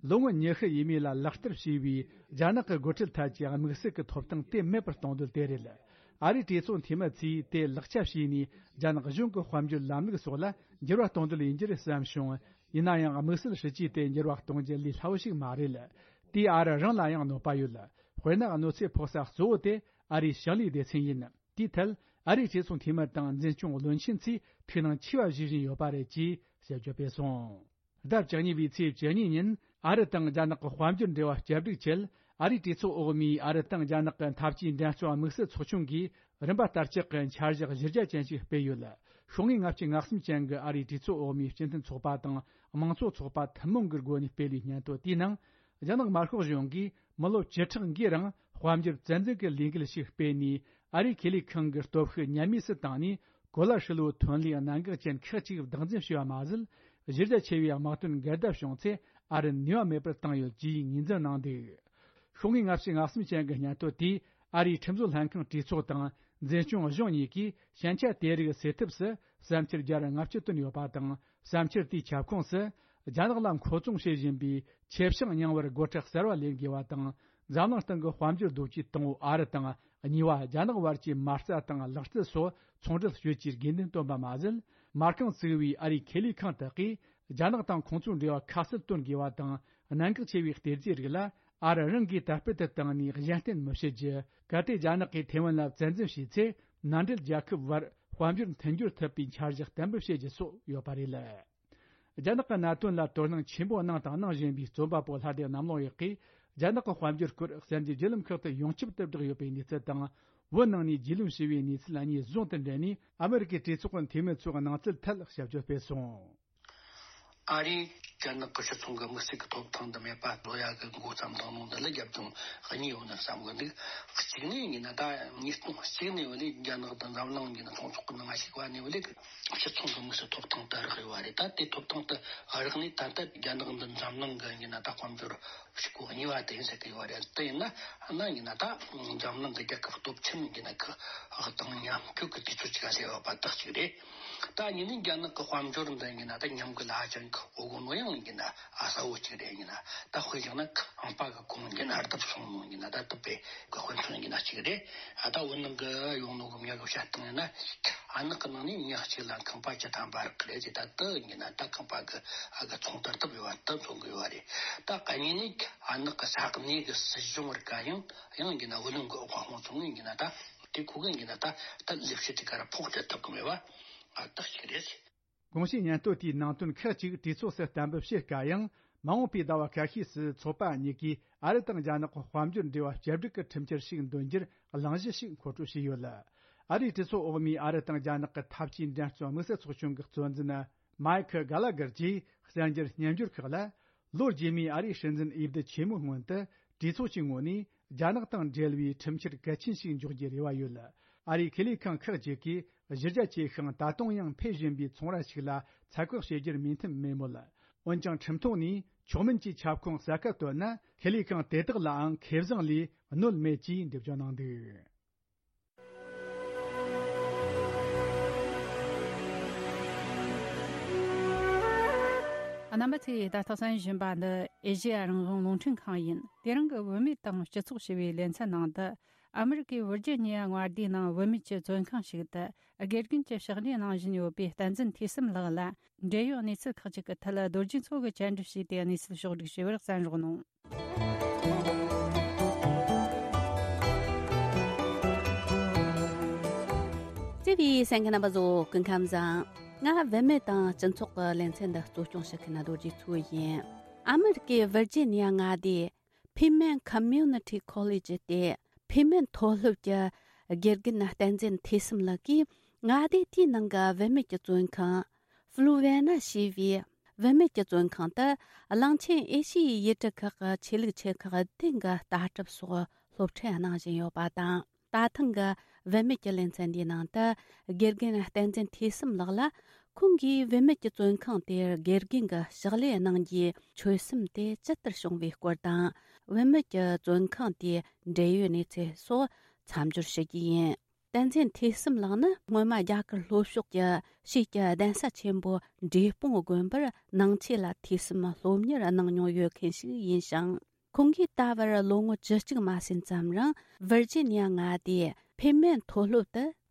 ལོ་ངོ་ཉི་ཤུ་ཡས་མས་ལ་ལག་བསྟར་བྱས་པའི་རྒྱ་ནག་གི་སྒོ་ཁྲལ་ཐད་ཀྱི་དམིགས་བསལ་གྱི་ཐོབ་ཐང་དེ་མེད་པར་གཏོང་འདོད་དེ་རེད། ཨ་རིའི་གྲོས་ཚོགས་འཐུས་མི་ཚོས་དེ་ལག་ཆ་བྱས་ནས། རྒྱ་ནག་གཞུང་གི་དཔལ་འབྱོར་ལམ་ལུགས་སོགས་ལ་འགྱུར་བ་གཏོང་འདོད་ཡིན་རྒྱུ་རེད་བསམ་བྱུང་། ཡིན་ན་ཡང་། དམིགས་བསལ་སྲིད་ཇུས་དེ་འགྱུར་བ་གཏོང་རྒྱུ་ལས་སླ་བོ་ཞིག་མ་རེད། དེས་ཨ་རི་རང་ལ་ཡང་གནོད་པ་ཡོད། དཔེར་ན། གནོད་འཚེ་ཕོག་ས་གཙོ་བོ་དེ་ཨ་རིའི་ཞིང་ལས་སྡེ་ཚན་ཡིན། དེའི་ཐད། ཨ་རིའི་གྲོས་ཚོགས་འཐུས་མི་དང་འཛིན་སྐྱོང་བློན་ཆེན་ཚོས་ཐུགས་སྣང་ཆེ་བ་བཞེས་བཞིན་ཡོད་པ་རེད་ཅེས་དཔྱད་བརྗོད་སྤེལ་སོང་། ཟླ་བཅུ་གཉིས་པའི་ཚེས་བཅུ་གཉིས་ཉིན། ཨ་རི་དང་རྒྱ་ནག་གི་དཔལ་འབྱོར་འབྲེལ་བ་བསྐྱར་སྒྲིག་ཆེད། ཨ་རིའི་གྲོས་ཚོགས་འོག་མའི་ཨ་རི་དང་རྒྱ་ནག་གི་འཐབ་ཇུས་འགྲན་རྩོད་དམིགས་བསལ་ཚོགས་ཆུང་གིས་རིམ་པ་ལྟར་ལྕག་གི་འཆར་གཞི་གཞི་རྒྱ་ཅན་ཞིག་སྤེལ་ཡོད། ཤོག་ངོས་ལྔ་བཅུ་ང་གསུམ་ཅན་གྱི་ཨ་རིའི་གྲོས་ཚོགས་འོག་མའི་སྤྱི་མཐུན་ཚོགས་པ་དང་དམངས་གཙོ་ཚོགས་པ་ཐུན་མོང་གི་སྒོ་ནས་སྤེལ་བའི་སྙན་ཐོ་དེའི་ནང་། རྒྱ་ནག་དམར་ཤོག་གཞུང་གིས་མི་ལོ་བཅུ་ཕྲག་འགའི་རིང་དཔལ་འབྱོར་བཙན་འཛུལ་གྱི་ལས་འགུལ་ཞིག་སྤེལ་ནས། ཨ་རིའི་ཁེ་ལས་ཁང་གི་སྟོབས་ཤུགས་ཉམས་དམས་སུ་བཏང་ནས། གོ་ལ་ཧྲིལ་བོའི་ཐོན་ལས་གནད་འགག་ཅན་ཁག་ཅིག་བདག་འཛིན་བྱས་པ་མ་ཟད། གཞི་རྒྱ་ཆེ་བའི་དམག་དོན་འགལ་ཟླ་བྱུང་ཚེ། ཨ་རི་ནུས་པ་མེད་པར་བཏང་ཡོད་ཅེས་ངོས་འཛིན་གནང་འདུག་ཤོག་ངོས་ལྔ་བཅུ་ང་གསུམ་ཅན་གྱི་སྙན་ཐོ་དེས། ཨ་རིའི་ཁྲིམས་བཟོ་ལྷན་ཁང་གྲོས་ཚོགས་དང་འཛིན་སྐྱོང་གཞུང་གཉིས་ཀྱིས་ཞན་ཆ་དེ་རིགས་སེལ་ཐབས་སུ་བསམ་འཆར་བརྒྱ་དང་ལྔ་བཅུ་བཏོན་ཡོད་པ་དང་། བསམ་འཆར་དེའི་ཁྱབ་ཁོངས་སུ། རྒྱ་ནག་ལ་མཁོ་བཙུན་བྱེད་བཞིན་པའི་ཆེ་ཤིང་རྙིང་བར་སྒོ་ཁྲལ་གསར་བ་ལེན་དགོས་པ་དང་། འཛམ་གླིང་སྟེང་གི་དཔལ་འབྱོར་རྡོ་སྐྱེས་དང་པོ་ཨ་རི་དང་། གཉིས་པ་རྒྱ་ནག་བར་གྱི་མ་རྩ་དང་ལག་རྩལ་སོགས་ཚོང་འབྲེལ་གཅོད་རྒྱུའི་དགོས་འདུན་བཏོན་པ་མ་ཟད། མ་རྐང་བཙུགས་པའི་ཨ་རིའི་ཁེ་ལས་ཁང་དག་གིས་རྒྱ་ནག་དང་ཁོང་ཚོའི་འབྲེལ་བ་ཁ་གསལ་སྟོན་དགོས་པ་དང་། གནད་འགག་ཆེ་བའི་གཏེར་རྫས་རིགས་ལ་ཨ་རི་རང་གིས་དར་སྤེལ་དུ་བཏང་ནས་གཞན་བརྟེན་མི་བྱེད་རྒྱུ། གལ་ཏེ་རྒྱ་ནག་གིས་ཐེ་ཝན་ལ་བཙན་འཛུལ་བྱས་ཚེ། མནའ་འབྲེལ་རྒྱལ་ཁབ་བར་དཔལ་འབྱོར་མཐུན་སྦྱོར་ཐུབ་པའི་འཆར་གཞི་གཏན་འབེབས་བྱེད་རྒྱུ་སོགས་ཡོད་པ་རེད། རྒྱ་ནག་གི་གནད་དོན་ལ་དོ་སྣང་ཆེན་པོ་གནང་དང་གནང་བཞིན་པའི་རྩོམ་པ་པོ་ལྷ་སྡེ་གནམ་ལོ་ཡག་གིས། རྒྱ་ནག་གི་དཔལ་འབྱོར་སྐོར་གསར་འགྱུར་བརྒྱུད་ལམ་ཁག་ཏུ་ཡོངས་ཁྱབ་ཏུ་བསྒྲགས་ཡོད་པའི་གནས་ཚུལ་དང་། བོད་ནང་ནས་རྒྱུས་ལོན་བྱས་པའི་གནས་ཚུལ་གཉིས་ཟུང་དུ་འབྲེལ་ནས། ཨ་མི་རི་ཀའི་གྲོས་ཚོགས་ཀྱི་འཐུས་མི་ཚོའི་གནང་ཚུལ་ཐད་ཞིབ་དཔྱོད་སྤེལ་སོང་། ཨ་རིས་རྒྱ་ནག་གི་སྤྱི་ཚོགས་ཀྱི་དམིགས་བསལ་གྱི་ཐོབ་ཐང་དུ་མེད་པ་བཟོ་ཡ་གི་འགོ་བརྩམས་བཏང་ནོ་འདི་ལ་རྒྱབ་ལྗོངས་གཉིས་ཡོད་ན་བསམ་གི་འདུག་གཅིག་ནས་ཡིན་ན། ད་ཉིས་སྟོང་གཅིག་ནས་བ་ལས་རྒྱ་ནག་དང་འཛམ་གླིང་གི་ཚོང་ཚོགས་ཀྱི་ནང་ཞུགས་པ་ནས་བ་ལས་སྤྱི་ཚོགས་ཀྱི་དམིགས་བསལ་ཐོབ་ཐང་དུ་རག་ཡོད་པ་རེད། ད་དེ་ཐོབ་ཐང་དུ་རག་ནས་ད་ལྟ་རྒྱ་ནག་འདི་འཛམ་གླིང་གི་ཡིན་ན་ད་དཔལ་འབྱོར་ཕྱུག་པོ་གཉིས་པ་དེ་ཡིན་ཟེར་གི་ཡོད་པ་རེད། དེ་ཡིན་ན་ན་ཡིན་ན་ད་འཛམ་གླིང་གི་རྒྱལ་ཁབ་སྟོབས་ཆེན་ཡིན་ན་ཁག་དང་མཉམ་འཁྲུག་གི་དུས་ཚོད་ཅིག་ཟེར་བ་པ་དག་ཅིག་རེད། ད་ཡིན་ནའི་རྒྱ་ནག་གི་དཔལ་འབྱོར་འདི་ཡིན་ན་ད་ཉམས་རྒུད་ཧ་ཅང་གི་འོ་གོ་ནོ་ཡང་ཡིན་ན་ཨ་གསལ་བོ་ཅིག་རེད། ཡིན་ན་ད་དཔེ་བཞག་ན་ཁང་པ་གི་གོང་ཡིན་ན་ལྡབ་གསུམ་ཡིན་ན་ད་དུ་པའི་གི་དཔེ་མཚོན་ཡིན་ན་ཅིག་རེད། ཨ་ད་བོད་ནང་གི་ཡོང་ནོ་གི་མྱི་གི་བཤད་སྟངས་ཡིན་ན་ཨ་ནག་གི་ནང་ནས་ཉག་གཅིག་ལ་ཁང་པ་བཅུ་ཐམ་པ་རག་གི་རེད་ཟེར། ད་དུ་ཡིན་ན་ད་ཁང་པ་གི་ཨ་གི་ཚོང་དར་ཐུབ་ཡོད་པ་ད་མཚོན་གི་ཡོད་པ་རེད། ད་ག་ཉིན་ནས་ཨ་ནག་གི་ས་གནས་གི་སྲིད་གཞུང་བར་ག་ཡང་ཡང་ཡིན་ན་བུ་ལོན་གི་དབང་ཚོང་ངེས་ཡིན་ན་ད་དེ་ཁུ་གི་ཡིན་ན་ད་ད་ལས་བྱེད་དེ་ག་ར་ཕོགས་སྤྲད་ཐུབ་གི་མེད་པ་ཨ་རྟགས་ཤིག་རེད། དགོངས་ཞུའི་སྙན་ཐོ་དེའི་ནང་དོན་ཁག་ཅིག་གྲོས་ཚོགས་སུ་གཏན་འབེབས་བྱེད་དཀའ་ཡང་། མ་འོངས་པའི་ཟླ་བ་ཁ་ཤས་སུ་ཚོགས་པ་གཉིས་ཀས་ཨ་རི་དང་རྒྱ་ནག་གི་དཔལ་འབྱོར་འབྲེལ་བ་བཅོས་སྒྲིག་གི་ཁྲིམས་འཆར་ཞིག་འདོན་རྒྱུར་གླེང་གཞི་ཞིག་མཁོ་སྤྲོད་བྱས་ཡོད། ཨ་རིའི་གྲོས་ཚོགས་འོག་མའི་ཨ་རི་དང་རྒྱ་ནག་གི་འཐབ་ཇུས་འགྲན་རྩོད་དམིགས་བསལ་ཚོགས་ཆུང་གི་གཙོ་འཛིན་མའེ་ཁི་གྷ་ལ་གར་གྱིས་གསར་འགྱུར་སྙན་འགྱུར་ཁག་ལ། ལོ་རྗེས་མའི་ཨ་རིའི་སྲིད་འཛིན་འོས་བསྡུ་ཆེན་མོའི་སྔོན་དུ་གྲོས་ཚོགས་ཀྱི་ངོས་ནས་རྒྱ་ནག་དང་འབྲེལ་བའི་ཁྲིམས་འཆར་གལ་ཆེན་ཞིག་འཇོག་རྒྱུའི་རེ་བ་ཡོད། ཨ་རིའི་ཁེ་ལས་ཁང་ཁག་ཅིག་གིས་གཞི་རྒྱ་ཆེ་ཞིང་ད་དུང་ཡང་འཕེལ་བཞིན་པའི་ཚོང་ར་ཞིག་ལ་ཚད་བཀག་བྱེད་རྒྱུར་མོས་མཐུན་མེད་མོད། འོན་ཀྱང་ཁྲིམས་ཐོག་ནས་མཆོག་དམན་གྱི་ཁྱབ་ཁོངས་གསལ་ཁ་བཏོན་ན་ཁེ་ལས་ཁང་དེ་དག་ལའང་ཁེ་བཟང་ལས་གནོད་མེད་ཅེས་འགྲེལ་བརྗོད་གནང་འདུག་རྣམ་པ་ཚོས་ད་ལྟ་གསན་བཞིན་པ་འདི་ཨེ་ཤེ་ཡ་རང་དབང་རླུང་འཕྲིན་ཁང་ཡིན། དེ་རིང་གི་བུད་མེད་དང་སྤྱི་ཚོགས་ཞེས་པའི་ལེ་ཚན་ནང་དུ། ཨ་མི་རི་ཀའི་ཝིར་ཇི་ནི་ཡ་མངའ་སྡེའི་ནང་བུད་མེད་ཀྱི་བཙོན་ཁང་ཞིག་ཏུ་དགེ་རྒན་གྱི་ཕྱག་ལས་གནང་བཞིན་ཡོད་པའི་བསྟན་འཛིན་ཐོས་བསམ་ལགས་ལ། འབྲེལ་ཡོད་གནས་ཚུལ་ཁག་ཅིག་གི་ཐད་རྡོ་རྗེ་མཚོ་གིས་བཅར་འདྲི་བྱས་ཏེ་གནས་ཚུལ་ཕྱོགས་བསྒྲིགས་བྱས་པར་གསན་རོགས་གནང་། བརྩེ་བའི་གསན་མཁན་རྣམ་པ་ཚོ་སྐུ་ཁམས་བཟང་། ང་བུད་མེད་དང་སྤྱི་ཚོགས་ཀྱི་ལེ་ཚན་འདི་གཙོ་སྐྱོང་བྱེད་མཁན་རྡོ་རྗེ་མཚོ་ཡིན། ཨ་མི་རི་ཀའི་ཝིར་ཇི་ནི་ཡ་མངའ་སྡེའི་ཕི་མེན་ཁོ་མིའུ་ནི་ཊི་ཁོ་ལེ་ཇི་སྟེ། ཕི་མེན་མཐོ་སློབ་ཀྱི་དགེ་རྒན་བསྟན་འཛིན་ཐོས་བསམ་ལགས་ཀྱིས་མངའ་སྡེ་དེའི་ནང་གི་བུད་མེད་ཀྱི་བཙོན་ཁང་། ཧྥུ་ལུ་ཝེ་ན་ཞེས་པའི་བུད་མེད་ཀྱི་བཙོན་ཁང་དུ་གླིང་ཆེན་ཨེ་ཤི་ཡའི་ཡུལ་གྲུ་ཁག་གི་ཆོས་ལུགས་ཆེ་ཁག་བདུན་གྱི་ལྟ་གྲུབ་སོགས་སློབ་ཁྲིད་གནང་བཞིན་ཡོད་པ་དང་། ད་ཐེངས་ཀྱི་བུད་མེད་ཀྱི་ལེ་ཚན་འདིའི་ནང་དུ་དགེ་རྒན་བསྟན་འཛིན་ཐོས་བསམ་ལགས་ལ། ཁོང་གིས་བུད་མེད་ཀྱི་བཙོན་ཁང་དེར་དགེ་རྒན་གྱི་ཕྱག་ལས་གནང་རྒྱུའི་ཆོད་སེམས་དེ་ཇི་ལྟར་བྱུང་བའི་སྐོར་དང་། བུད་མེད་ཀྱི་བཙོན་ཁང་དེའི་འབྲེལ་ཡོད་གནས་ཚུལ་སོགས་མཚམས་སྦྱོར་ཞུ་རྒྱུ་ཡིན། བསྟན་འཛིན་ཐོས་བསམ་ལགས་ནི་སྔོན་མ་རྒྱ་གར་ལྷོ་ཕྱོགས་ཀྱི་ཕྱིས་ཀྱི་གདན་ས་ཆེན་པོ་འབྲས་སྤུངས་དགོན་པར་ནང་ཆོས་ལ་ཐོས་བསམ་སློབ་གཉེར་གནང་མྱོང་ཡོད་མཁན་ཞིག་ཡིན་ཞིང་། ཁོང་གིས་ད་བར་ལོ་ངོ་བཅུ་གཅིག་མ་ཟིན་ཙམ་རིང་ཝིར་ཇི་ནི་ཡ་མངའ་སྡེའི་ཕེ་མེན་མཐོ་སློབ་ཏུ་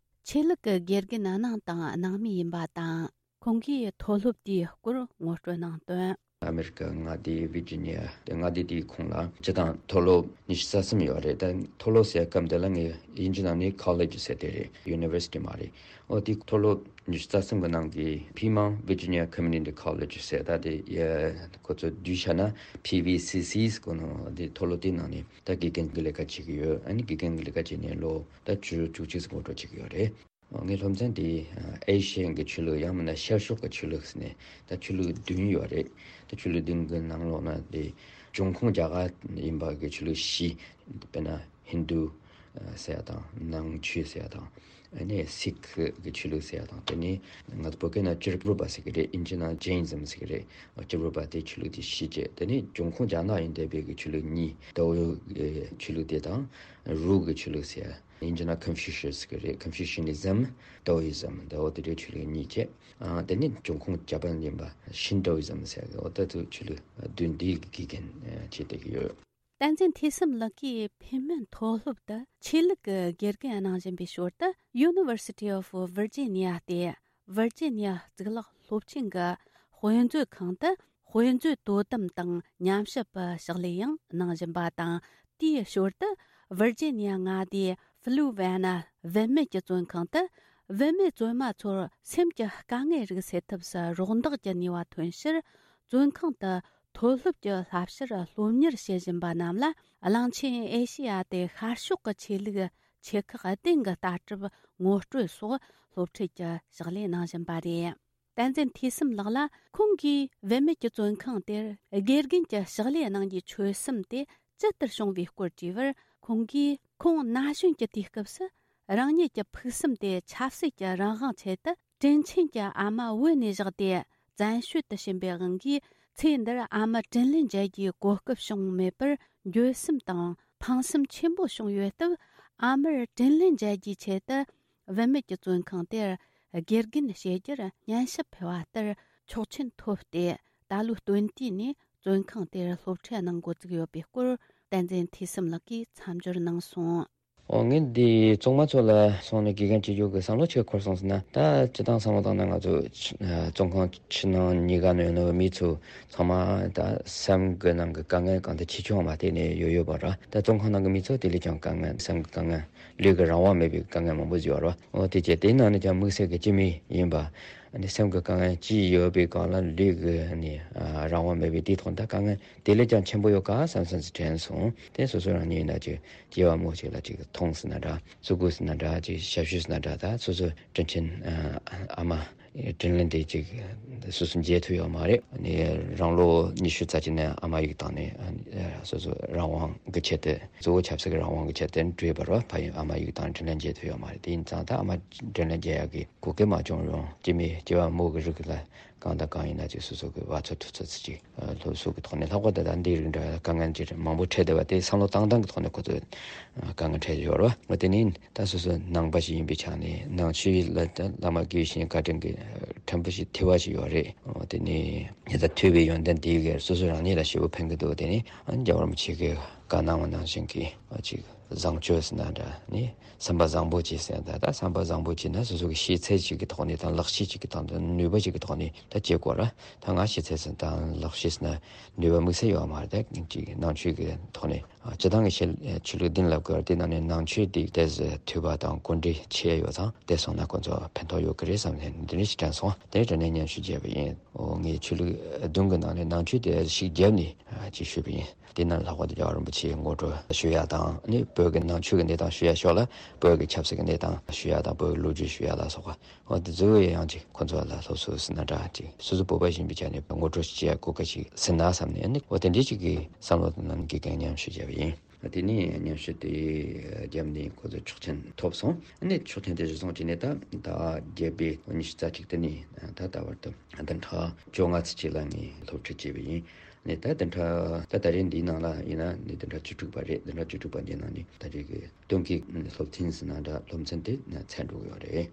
ཆོས་ལུགས་ཀྱི་དགེ་རྒན་གནང་དང་གནང་མུས་ཡིན་པ་དང་། ཁོང་གིས་མཐོ་སློབ་དེའི་སྐོར་ངོ་སྤྲོད་གནང་དོན། ཨ་མེ་རི་ཀ་མངའ་སྡེ་ཝི་ཇི་ནི་ཡ་དེ་མངའ་སྡེ་དེའི་ཁོངས་ལ་སྤྱི་བཏང་མཐོ་སློབ་ཉི་ཤུ་རྩ་གསུམ་ཡོད་རེད། ད་མཐོ་སློབ་ཟེར་སྐབས་འདི་ལ་ངས་དབྱིན་ཇི་ནང་ནས་ཁོ་ལེཇ་ཟེར་དེ་རེད། ཡུ་ནི་ཝར་སི་ཊི་མ་རེད། ཨོ་དེ་མཐོ་སློབ་ཉི་ཤུ་རྩ་གསུམ་གི་ནང་གི་ཕི་མང་ཝི་ཇི་ནི་ཡ་ཁོ་མུ་ནི་ཊི་ཁོ་ལེཇ་ཟེར། ད་དེ་ཡ་ཁོ་ཚོ་བསྡུས་བྱས་ན་ཕི་ཝི་སི་སི་ཟེར་གོ་ནོ། དེ་མཐོ་སློབ་དེའི་ནང་ནས་ད་དགེ་རྒན་གྱི་ལས་ཀ་བྱེད་ཀྱི་ཡོད། ཨ་ནི་དགེ་རྒན་གྱི་ལས་ཀ་བྱས་ནས་ལོ་ད་བཅུ་བཅུ་གཅིག་ཙམ་འགོ་འགྲོ་བྱེད་ཀྱི་ཡོད་རེད། ངའི་སློབ་ཚན་དེ་ཨེ་ཤི་ཡན་གྱི་ཆོས་ལུགས་ཡང་མིན་ན་ཤར་ཕྱོགས་ཀྱི་ཆོས་ལུགས་ཟེར་ནས་ད་ཆོས་ལུགས་བདུན་ཡོད་རེད། ད་ཆོས་ལུགས་བདུན་གྱི་ནང་ལོགས་ན་དེ་འབྱུང་ཁུངས་རྒྱ་གར་ཡིན་པ་གི་ཆོས་ལུགས་བཞི། དཔེར་ན་ཧིན་རྡུ་ཟེར་ཡ་དང་ནང་ཆོས་ཟེར་ཡ་དང་། ཨ་ནི་སིག་གི་ཆོས་ལུགས་ཟེར་ཡ་དང་། དེ་ནས་ང་ཚོ་བོད་སྐད་ན་ཅིར་གྲུབ་པ་ཟེར་གི་རེད། ཨིན་ཇི་ནང་ཇེ་ཨིན་ཛམ་ཟེར་གི་རེད། ཅིར་གྲུབ་པ་དེ་ཆོས་ལུགས་དེ་བཞི་བྱས། དེ་ནས་འབྱུང་ཁུངས་རྒྱ་ནག་ཡིན་བསྡད་པའི་གི་ཆོས་ལུགས་གཉིས། ཏའོ་གི་ཆོས་ལུགས་དེ་དང་རུ་གི་ཆོས་ལུགས་ཟེར་ཡ། དབྱིན་ཇི་ན་ཀོན་ཕུ་ཤི་ཡས་གི་རེད། ཀོན་ཕུ་ཤི་ནི་ཛམ། ཏའོ་ཡི་ཛམ། ཏའོ་དེ་འདྲའི་ཆོས་ལུགས་གཉིས་བྱས། ཨ་དེ་ནི་འབྱུང་ཁུངས་ཇ་པན་ཡིན་པ་ཤིན་ཏའོ་ཡི་ཛམ་ཟེར་གི། འོ་ད་དུ་ཆོས་ལུགས་བདུན་འདིའི་དགེ་རྒན་བྱེད་བསྡད་ཀྱི་ཡོད། བསྟན་འཛིན་ཐོས་བསམ་ལགས་ཀྱིས་ཕན་མན་མཐོ་སློབ་ཏུ་ཆོས་ལུགས་ཀྱི་དགེ་རྒན་གནང་བཞིན་པའི་ཞོར་དུ། University of Virginia སྟེ་ཝར་ཇི་ནི་ཡ་གཙུག་ལག་སློབ་ཆེན་གྱི་དཔེ་མཛོད་ཁང་དུ་དཔེ་མཛོད་དོ་དམ་དང་ཉམས་ཞིབ་པའི་ཕྱག་ལས་ཡང་གནང་བཞིན་པ་དང་། དེའི་ཞོར་དུ་ཝར་ཇི་ནི་ཡ་མངའ་སྡེའི་ཕུ་ལུ་ཝེ་ན་བུད་མེད་ཀྱི་བཙོན་ཁང་དུ་བུད་མེད་བཙོན་མ་ཚོར་སེམས་ཀྱི་དཀའ་ངལ་རིགས་སེལ་ཐབས་སུ་རོགས་འདེགས་ཀྱི་ནུས་པ་ཐོན་ཕྱིར། བཙོན་ཁང་དུ་མཐོ་སློབ་ཀྱི་བསླབ་བྱར་སློབ་གཉེར་བྱེད་བཞིན་པ་རྣམས་ལ། གླིང་ཆེན་ཨེ་ཤེ་ཡ་དེ་ཤར་ཕྱོགས་ཀྱི་ཆོས་ལུགས་ཆེ་ཁག་སྡིངས་ཀྱི་ལྟ་གྲུབ་ངོ་སྤྲོད་སོགས་སློབ་ཁྲིད་ཀྱི་ཕྱག་ལས་གནང་བཞིན་པ་རེད། བསྟན་འཛིན་ཐོས་བསམ་ལགས་ལ་ཁོང་གིས་བུད་མེད་ཀྱི་བཙོན་ཁང་དེར་དགེ་རྒན་གྱི་ཕྱག་ལས་གནང་རྒྱུའི་ཆོད་སེམས་དེ་ཇི་ལྟར་བྱུང་བའི་སྐོར་དྲིས་པར། ཁོང་གིས་ཁོང་ན་གཞོན་གྱི་དུས་སྐབས་སུ་རང་ཉིད་ཀྱི་ཕུགས་བསམ་དེ་ཆབ་སྲིད་ཀྱི་རང་དབང་ཆེད་དུ། དྲིན་ཆེན་གྱི་ཨ་མ་བོད་ནས་བཞག་སྟེ་བཙན་བྱོལ་དུ་ཕྱིན་པའི་དབང་གིས། ཚེ་འདིར་ཨ་མ་དྲིན་ལན་འཇལ་རྒྱུའི་གོ་སྐབས་བྱུང་མེད་པར་འགྱོད་སེམས་དང་ཕངས་སེམས་ཆེན་པོ་བྱུང་ཡོད་སྟབས། ཨ་མར་དྲིན་ལན་འཇལ་རྒྱུའི་ཆེད་དུ། བུད་མེད་ཀྱི་བཙོན་ཁང་དེར་དགེ་རྒན་བྱེད་རྒྱུར་སྙན་ཞུ་ཕུལ་བ་ལྟར་ཆོག་མཆན་ཐོབ་སྟེ། ད་ལོའི་སྟོན་དུས་ནས་བཙོན་ཁང་དེར་སློབ་ཁྲིད་གནང་འགོ་བཙུགས་ཡོད་པའི་སྐོར། བསྟན་འཛིན་ཐོས་བསམ་ལགས་ཀྱིས་མཚམས་སྦྱོར་གནང་སོང་། ཨོ་ངས་འདི་བཙོན་མ་ཚོ་ལ་སོང་ནས་དགེ་རྒན་བྱེད་རྒྱུ་གི་བསམ་བློ་ཆེ་འཁོར་སོང་ཟེར་ན། ད་སྤྱི་བཏང་བསམ་བློ་བཏང་ན་ང་ཚོ་ཕྱི་ཨ་བཙོན་ཁང་ཕྱི་ནང་གཉིས་ཀ་ནས་ཡོང་ནོ་མི་ཚོ་ཚང་མ་ད་སེམས་ཀྱི་ནང་གི་དཀའ་ངལ་གང་དུ་ཆེ་ཆུང་མ་བལྟས་ནས་ཡོད་ཡོད་པ་ར། ད་བཙོན་ཁང་ནང་གི་མི་ཚོ་དེ་ལས་ཀྱང་དཀའ་ངལ་སེམས་ཀྱི་དཀའ་ངལ་ལུས་ཀྱི་རང་དབང་མེད་པའི་དཀའ་ངལ་མང་པོ་ཡོད་ར། ཨོ་དེ་བྱས་དེའི་ནང་ནས་ཀྱང་དམིགས་བསལ་གྱི་སྤྱི་མི་ཡིན་པ། ཨ་ནི་སེམས་ཀྱི་དཀའ་ངལ་ཅི་ཡོད་པའི་སྒང་ལ་ལུས་ཀྱི་ཨ་ནི་ཨ་རང་དབང་མེད་པའི་དེའི་ཐོག་ད་དཀའ་ངལ་དེ་ལས་ཀྱང་ཆེན་པོ་ཡོད་ག་བསམ་བསམ་ཅིག་དྲན་སོང་། དེ་སོ་སོ་རང་ཉིད་ཡིན་ན་ཅིག་སྐྱེ་བ་སྨོས་ཅིག་ལ་ཅིག་མཐོང་ཟེར་ན་འདྲ། གཟུགས་པོ་ཟེར་ན་འདྲ། ཅིག་ཞབས་ཞུ་ཟེར་ན་འདྲ། ད་སོ་སོ་དྲིན་ཆེན་ཨ་མ་དྲིན་ལན་དེ་ཅིག་སོ་སོ་འཇལ་ཐུབ་ཡོད་མ་རེད། ཨ་ནི་རང་ལོ་ཉི་ཤུ་རྩ་གཅིག་ནས་ཨ་མ་ཡིག་བཏང་ནས་ཨ་ནི་སོ་སོ་རང་དབང་གི་ཆེད་དུ་གཙོ་བོ་ཆབ་སྲིད་ཀྱི་རང་དབང་གི་ཆེད་དུ་བྲོས་པ་རེད་བ། ཕ་ཡུལ་ཨ་མ་ཡིག་བཏང་དྲིན་ལན་འཇལ་ཐུབ་ཡོད་མ་རེད། དེ་ཡིན་ཙང་ད་ཨ་མ་དྲིན་ལན་འཇལ་ཡག་གི་གོ་སྐབས་མ་བྱུང་རུང་སྐྱེ་མི་སྐྱེ་བ་སྨོས་ཀྱི་རིགས་ལ་གང་དང་གང་ཡིན་ན་ཅིག་སོ་སོ་གི་བ་ཚོ་ཐུག་ཚོད་ཅིག་སློབ་གསོ་གི་ཐོག་ནས་ལྷག་པར་དུ་ད་འདི་རིགས་འདྲ་དཀའ་ངལ་ཅིག་མང་པོ་འཕྲད་བསྡད་པ་དེ་བསམ་བློ་བཏང་སྟངས་ཀྱི་ཐོག་ནས་ཁོ་ཚོས་དཀའ་ངལ་འཕྲད་ཡོད་རེད་བ། འོ་དེ་ནི་ད་སོ་སོ་ནང་པ་ཞིག་ཡིན་པའི་ཆ་ནས་ནང་ཆོས་ལ་ད་བླ་མ་དགེ་བའི་བཤེས་གཉེན་བཀའ་དྲིན་གྱི་ཕྲན་བུ་ཞིག་ཐོས་པ་ཞིག་ཡོད་རེད། འོ་དེ་ནི་ངས་ད་ཐོས་པའི་ཡོན་ཏན་དེའི་སྒེར་སོ་སོ་རང་ཉིད་ལ་ཞེ་པོ་ཕན་གྱི་འདུག་དེ་ནི་རྒྱལ་བ་རིན་པོ་ཆེ་གིས་བཀའ་གནང་བ་ནང་བཞིན་གྱི་ཅིག་བཟང་སྤྱོད་ཟེར་ན་འདྲ། ནི་བསམ་པ་བཟང་པོ་བྱེད་ཟེར་ན་ད་ད་བསམ་པ་བཟང་པོ་བྱེད་ན་སོ་སོ་གི་ཤེས་ཚད་ཅིག་གི་ཐོག་ནས་དང་ལག་ཤེས་ཅིག་གི་ཐོག་ནས་ནུས་པ་ཅིག་གི་ཐོག་ནས་ད་བྱེད་དགོས་ར། ད་ང་ཤེས་ཚད་ཟེར་དང་ལག་ཤེས་ཟེར་ན་ནུས་པ་དམིགས་བསལ་ཡོད་མ་རེད། ད་ཅིག་ནང་ཆོས་ཀྱི་ཐོག་ནས་སྤྱི་བཏང་གི་ཆོས་ལུགས་བདུན་ལབ་དགོས་ར། དེ་ནང་ནས་ནང་ཆོས་དེ་ཏོག་ཙམ་ཐོས་པ་དང་གོ་འདྲིས་ཆེ་ཡོད་ཙང་དེ་སོང་ན་ཁོ་ཚོ་ཕན་ཐོགས་ཡོད་ཀྱི་རེད་བསམ་ནས་འདི་འདྲ་ཞིག་དྲན་སོང་། དེ་དྲན་ནས་སྙན་ཞུ་བརྒྱབ་པ་ཡིན། འོ་ངས་ཆོས་ལུགས་བདུན་གྱི་ནང་ནས་ནང་ཆོས་དེ་ཞིག་བརྒྱབ་ནས་ཅིག་ཞུས་པ་ཡིན། དེ་ནང་ལྷག་པར་དུ་རྒྱལ་བ་རིན་པོ་ཆེའི་ངོ་སྤྲོད་ཞུ་ཡ་དང་ནི་བོད་ཀྱི་ནང་ཆོས་ཀྱི་གནས་སྟངས་ཞུ་ཡ་ཕྱོགས་ལ་བོད་ཀྱི་ཆབ་སྲིད་ཀྱི་གནས་སྟངས་ཞུ་ཡ་དང་བོད་ཀྱི་ལོ་རྒྱུས་ཞུ་ཡ་ལ་སོགས་པ། འོ་དེ་ཚོ་ཡང་ཅིག་ཁོ་ཚོ་ལ་སློབ་གསོ་ཟེར་ན་འདྲ་ཅིག་སོ་སོ་བོད་པ་ཡིན་པའི་ཆ་ནས་ངོ་སྤྲོད་བྱེད་ཡ་གོ་སྐབས་ཤིག་ཟིན་ན་བསམ་ནས་ནི་འོ་དེ་འདྲའི་ཅིག་གི་བསམ་བློ་དང་ནང་གི་གང་མཉམ་ཞུ་བྱས་པ་ཡིན། དེ་ནས་མཉམ་ཞུ་དེ་བརྒྱབ་ནས་ཁོ་ཚོ་ཆོག་མཆན་ཐོབ་སོང་། ཨ་ནི་ཆོག་མཆན་དེ་གཞིར་བཟུང་བྱས་ནས་ད་ཟླ་བརྒྱད་པའི་ཉི་ཤུ་རྩ་གཅིག་དེ་ནས་ད་ད་བར་དུ་བདུན་ཕྲག་བཅོ་ལྔ་ཙམ་ཅིག་ལ་ངས་སློབ་ཁྲིད་བྱས་པ་ཡིན། ནས་ད་བདུན་ཕྲག་ད་ད་རེས་འདིའི་ནང་ལ་ཡིན་ན་ནི་བདུན་ཕྲག་བཅུ་དྲུག་པ་རེད། བདུན་ཕྲག་བཅུ་དྲུག་པ་འདིའི་ནང་ནས་ད་རེས་ཀྱི་སྟོན་ཀའི་སློབ་ཚན་ཟེར་ན་འདྲ་སློབ་ཚན་དེ་ཚར་འགྲོ་གི་ཡོད་རེད།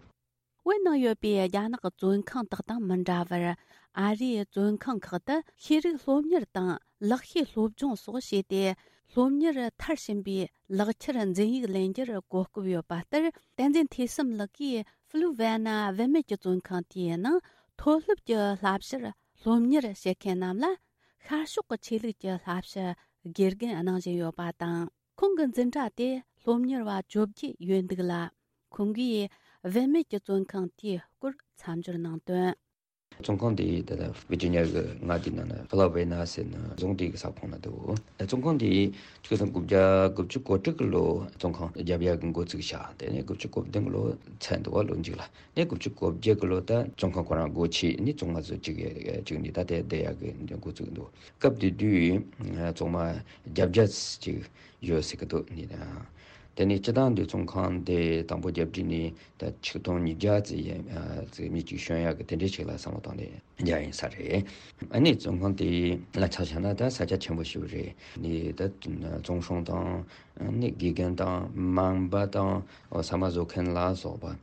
བོད་ནང་ཡོད་པའི་རྒྱ་ནག་གི་བཙོན་ཁང་དག་དང་མི་འདྲ་བར། ཨ་རིའི་བཙོན་ཁང་ཁག་ཏུ་ཤེས་རིག་སློབ་གཉེར་དང་ལག་ཤེས་སློབ་སྦྱོང་སོགས་བྱས་ཏེ། སློབ་གཉེར་མཐར་ཕྱིན་པའི་ལག་ཁྱེར་འཛིན་ཡིག་ལེན་རྒྱུར་གོ་སྐབས་ཡོད་པ་ལྟར། བསྟན་འཛིན་ཐོས་བསམ་ལགས་ཀྱིས་ཕུ་ལུ་ཝེ་ན་བུད་མེད་ཀྱི་བཙོན་ཁང་དེའི་ནང་ མཐོ་སློབ་ཀྱི་བསླབ་བྱར་སློབ་གཉེར་བྱེད་མཁན་རྣམས་ལ་ཤར་ཕྱོགས་ཀྱི་ཆོས་ལུགས་ཀྱི་བསླབ་བྱ་དགེ་རྒན་གནང་བཞིན་ཡོད་པ་དང་། ཁོང་གི་འཛིན་གྲྭ་དེ་སློབ་གཉེར་བ་བཅོ་བརྒྱད་ཡོད་འདུག་ལ། ཁོང་གིས་བུད་མེད་ཀྱི་བཙོན་ཁང་དེའི་སྐོར་མཚམས་སྦྱོར་གནང་དོན། བཙོན་ཁང་དེ་ད་ལྟ་ཝི་ཇི་ནི་ཡ་གི་མངའ་སྡེ་ནང་ན་ཕི་ལ་ཝེ་ན་ཟེར་ན་རྫོང་དེ་གི་ས་ཁོངས་ན་འདུག་བཙོན་ཁང་དེ་ཆིག་སྟོང་དགུ་བརྒྱ་དགུ་བཅུ་གོ་དྲུག་གི་ལོ་བཙོན་ཁང་རྒྱབ་ཡ་གི་འགོ་བཙུགས་བྱས། དེ་ནས་དགུ་བཅུ་གོ་བདུན་གི་ལོ་ཚར་འདུག་བ། ལོ་མཇུག་ལ་ནས་དགུ་བཅུ་གོ་བརྒྱད་གི་ལོ་ད་བཙོན་ཁང་ཁོ་རང་སྒོ་ཕྱེ་ནས་བཙོན་མ་ཚོ་གཅིག་གཅིག་ནས་ད་ལྟའི་བསྡད་ཡ་གི་འགོ་བཙུགས་འདུག་སྐབས་དེ་དུས་བཙོན་མ་བརྒྱད་བརྒྱ་ཅིག་ཡོད་ཟེར་གི་འདུག་ནི། དེ་ནས་སྤྱི་བཏང་དུ་བཙོན་ཁང་དེ་དང་པོ་རྒྱབ་བསྒྲིགས་ནས་ད་ཆིག་སྟོང་ཉིས་བརྒྱ་ཙམ་ཡན་ཙམ་མི་གཅིག་བྱོན་ཡག་གི་དེ་འདྲའི་ཞིག་ལ་བསམ་བློ་བཏང་ནས་རྒྱག་ཡིན་ས་རེད། ཨ་ནི་བཙོན་ཁང་དེ་ལ་ཆ་བཞག་ན་ད་ས་ཆ་ཆེན་པོ་ཞིག་རེད། ནི་ད་བཙོན་སྲུང་དང་ནི་དགེ་རྒན་དང་སྨན་པ་དང་ཟ་མ་བཟོ་མཁན་ལ་སོགས་པ།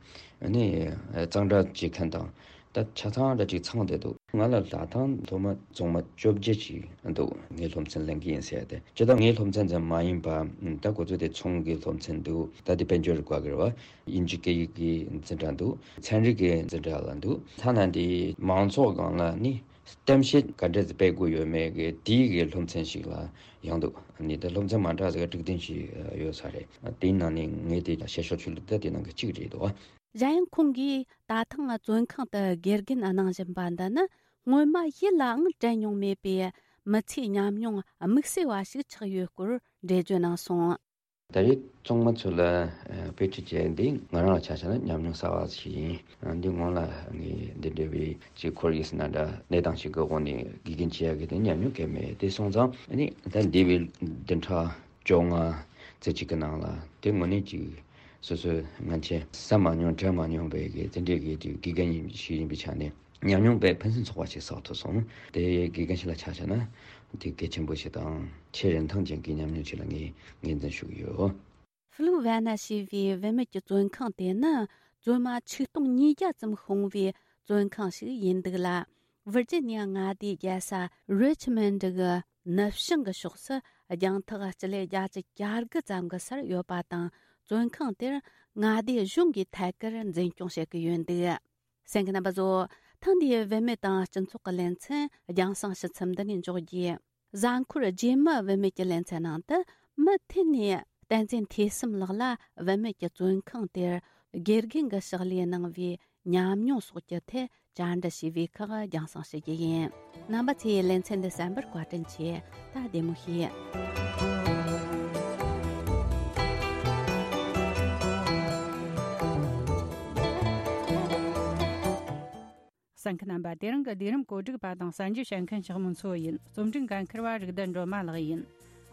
ནི་གཙང་སྦྲ་བྱེད་མཁན་དང་། ད་ཆ་ཚང་འདྲ་ཅིག་ཚང་བསྡད་འདུག་ང་ལ་ད་ཐེངས་སློབ་མ་བཙོན་མ་བཅོ་བརྒྱད་ཅིག་འདུག་ངའི་སློབ་ཚན་ལེན་གྱི་ཡིན་ཟེར་ཏེ། སྤྱིར་བཏང་ངའི་སློབ་ཚན་ཙམ་མ་ཡིན་པ། ད་ཁོ་ཚོ་དེ་ཚོང་གི་སློབ་ཚན་འདུག་ད་དེ་དཔལ་འབྱོར་བཀའ་གིར་བ་དབྱིན་ཇི་སྐད་ཡིག་གི་འཛིན་གྲྭ་འདུག་ཚན་རིག་གི་འཛིན་གྲྭ་ལ་འདུག་ཐ་ན་འདི་མང་ཚོགས་སྒང་ལ་ནི་གཏམ་བཤད་ག་འདྲ་ཞིག་སྤེལ་དགོས་ཡོད་མེད་ཀྱི་དེའི་གི་སློབ་ཚན་ཞིག་ལ་ཡང་འདུག་ནི་ད་སློབ་ཚན་མ་འདྲ་ཟེར་དྲུག་བདུན་ཞིག་ཡོད་ས་རེད། དེའི་ནང་ནས་ངས་དེ་བཤད་ཤོག་ཆུ་ལུགས་ད་དེ་ནང་གི་གཅིག་རེད་འདུག་གཞན་ཡང་ཁོང་གིས་ད་ཐེངས་བཙོན་ཁང་དུ་དགེ་རྒན་གནང་བཞིན་པ་འདི་ནི་སྔོན་མ་ཡིད་ལའང་དྲན་མྱོང་མེད་པའི་མི་ཚེའི་ཉམས་མྱོང་དམིགས་བསལ་བ་ཞིག་ཆགས་ཡོད་སྐོར་འགྲེལ་བརྗོད་གནང་སོང་། ད་རེས་བཙོན་མ་ཚོ་ལ་དཔེ་ཁྲིད་བྱས་འདི་ང་རང་ལ་ཆ་བཞག་ན་ཉམས་མྱོང་གསར་བ་ཞིག་ཡིན། འདི་སྔོན་ལ་ངས་འདི་འདྲ་བའི་ཅིག་ཁོར་ཡུག་ཟེར་ན་འདྲ་གནས་སྟངས་ཤིག་གི་འོག་ནས་དགེ་རྒན་བྱེད་ཡག་གི་དེ་ཉམས་མྱོང་གང་ཡང་མེད། དེ་སོང་ཙང་ནི་ད་འདས་པའི་བདུན་ཕྲག་བཅོ་ལྔ་ཙམ་ཅིག་གི་ནང་ལ་དེ་དངོས་གནས་ཅིག་སོ་སོའི་སྔན་ཆད་བསམ་མ་མྱོང་དྲན་མ་མྱོང་བའི་གི་དེ་འདྲའི་གི་དེ་དགེ་རྒན་ཡིན་ཞིག་ཡིན་པའི་ཆ་ནས་ཉམས་མྱོང་དཔེ་ཕུན་སུམ་ཚོགས་པ་ཞིག་བསགས་ཐུབ་སོང་། དེ་དགེ་རྒན་ཞིག་ལ་ཆ་བཞག་ན་དེ་གལ་ཆེན་པོ་ཞིག་དང་ཆེས་རིན་ཐང་ཅན་གྱི་ཉམས་མྱོང་ཞིག་ལ་ངས་ངོས་འཛིན་ཞུ་གི་ཡོད། ཧྥུ་ལུ་ཝེ་ན་ཞེས་པའི་བུད་མེད་ཀྱི་བཙོན་ཁང་དེ་ནི་བཙོན་མ་ཆིག་སྟོང་ཉིས་བརྒྱ་ཙམ་ཤོང་བའི་བཙོན་ཁང་ཞིག་ཡིན་འདུག་ལ། ཝིར་ཇི་ནི་ཡ་མངའ་སྡེའི་རྒྱལ་ས་རི་ཆི་མོན་ཌི་གི་ནུབ་བྱང་གི་ཕྱོགས་སུ་རྒྱང་ཐག་སྤྱི་ལེ་བརྒྱད་ཅུ་གྱ་དགུ་ཙམ་གྱི་སར་ཡོད་པ་དང་། བཙོན་ཁང་དེར་མངའ་སྡེ་གཞུང་གིས་ཐད་ཀར་འཛིན་སྐྱོང་བྱེད་ཀྱི་ཡོད་འདུག་གསན་མཁན་རྣམ་པ་ཚོ། ཐེངས་འདིའི་བུད་མེད་དང་སྤྱི་ཚོགས་ཀྱི་ལེ་ཚན་རྒྱང་སྲིང་ཕྱི་ཚུལ་འདི་ནས་འཇོག་རྒྱུ། གཟའ་འཁོར་རྗེས་མའི་བུད་མེད་ཀྱི་ལེ་ཚན་ནང་དུ་མུ་མཐུད་ནས་བསྟན་འཛིན་ཐོས་བསམ་ལགས་ལ་བུད་མེད་ཀྱི་བཙོན་ཁང་དེར་དགེ་རྒན་གྱི་ཕྱག་ལས་གནང་བའི་ཉམས་མྱོང་སོགས་ཀྱི་ཐད་བཅར་འདྲི་ཞུས་པའི་ཁག་རྒྱང་སྲིང་ཞུ་རྒྱུ་ཡིན། རྣམ་པ་ཚོས་ལེ་ཚན་འདི་གསན་པར་བཀའ་དྲིན་ཆེ། ད་བདེ་མོ་བྱོས། གསན་མཁན་རྣམ་པ། དེ་རིང་གི་ལས་རིམ་གོ་སྒྲིག་པ་དང་གསན་རྒྱུ་བྱེད་མཁན་ཞག་མོ་མཚོ་ཡིན། རྩོམ་སྒྲིག་འགན་འཁུར་བ་རིག་ལྡན་སྒྲོལ་མ་ལགས་ཡིན།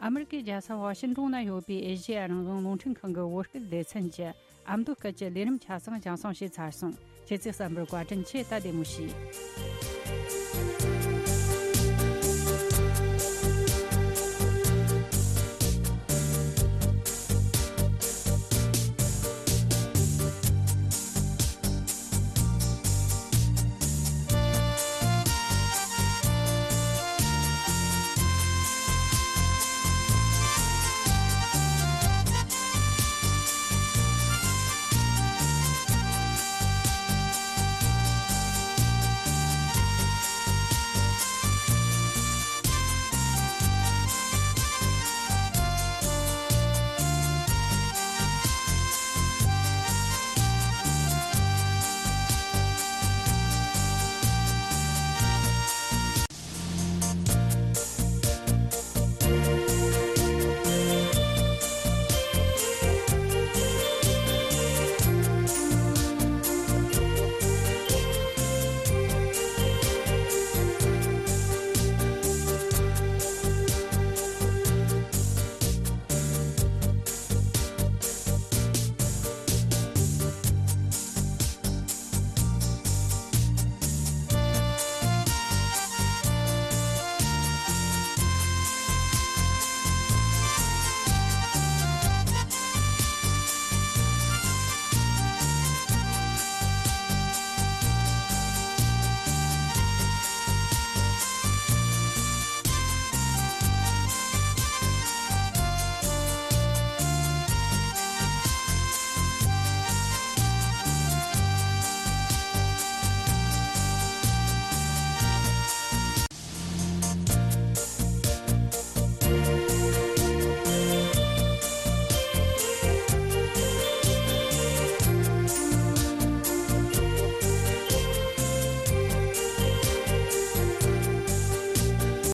ཨ་མི་རི་ཀའི་རྒྱལ་ས་ཝ་ཤིན་ཏོན་ན་ཡོད་པའི་ཨེ་ཤེ་ཡ་རང་དབང་རླུང་འཕྲིན་ཁང་གི་བོད་སྐད་སྡེ་ཚན་གྱི་ཨ་མདོ་སྐད་ཀྱི་ལས་རིམ་ཆ་ཚང་རྒྱང་སྲིང་བྱས་ཚར་སོང་། ཁྱེད་ཚོས་གསན་པར་བཀའ་དྲིན་ཆེ། ད་བདེ་མོ་བྱོས།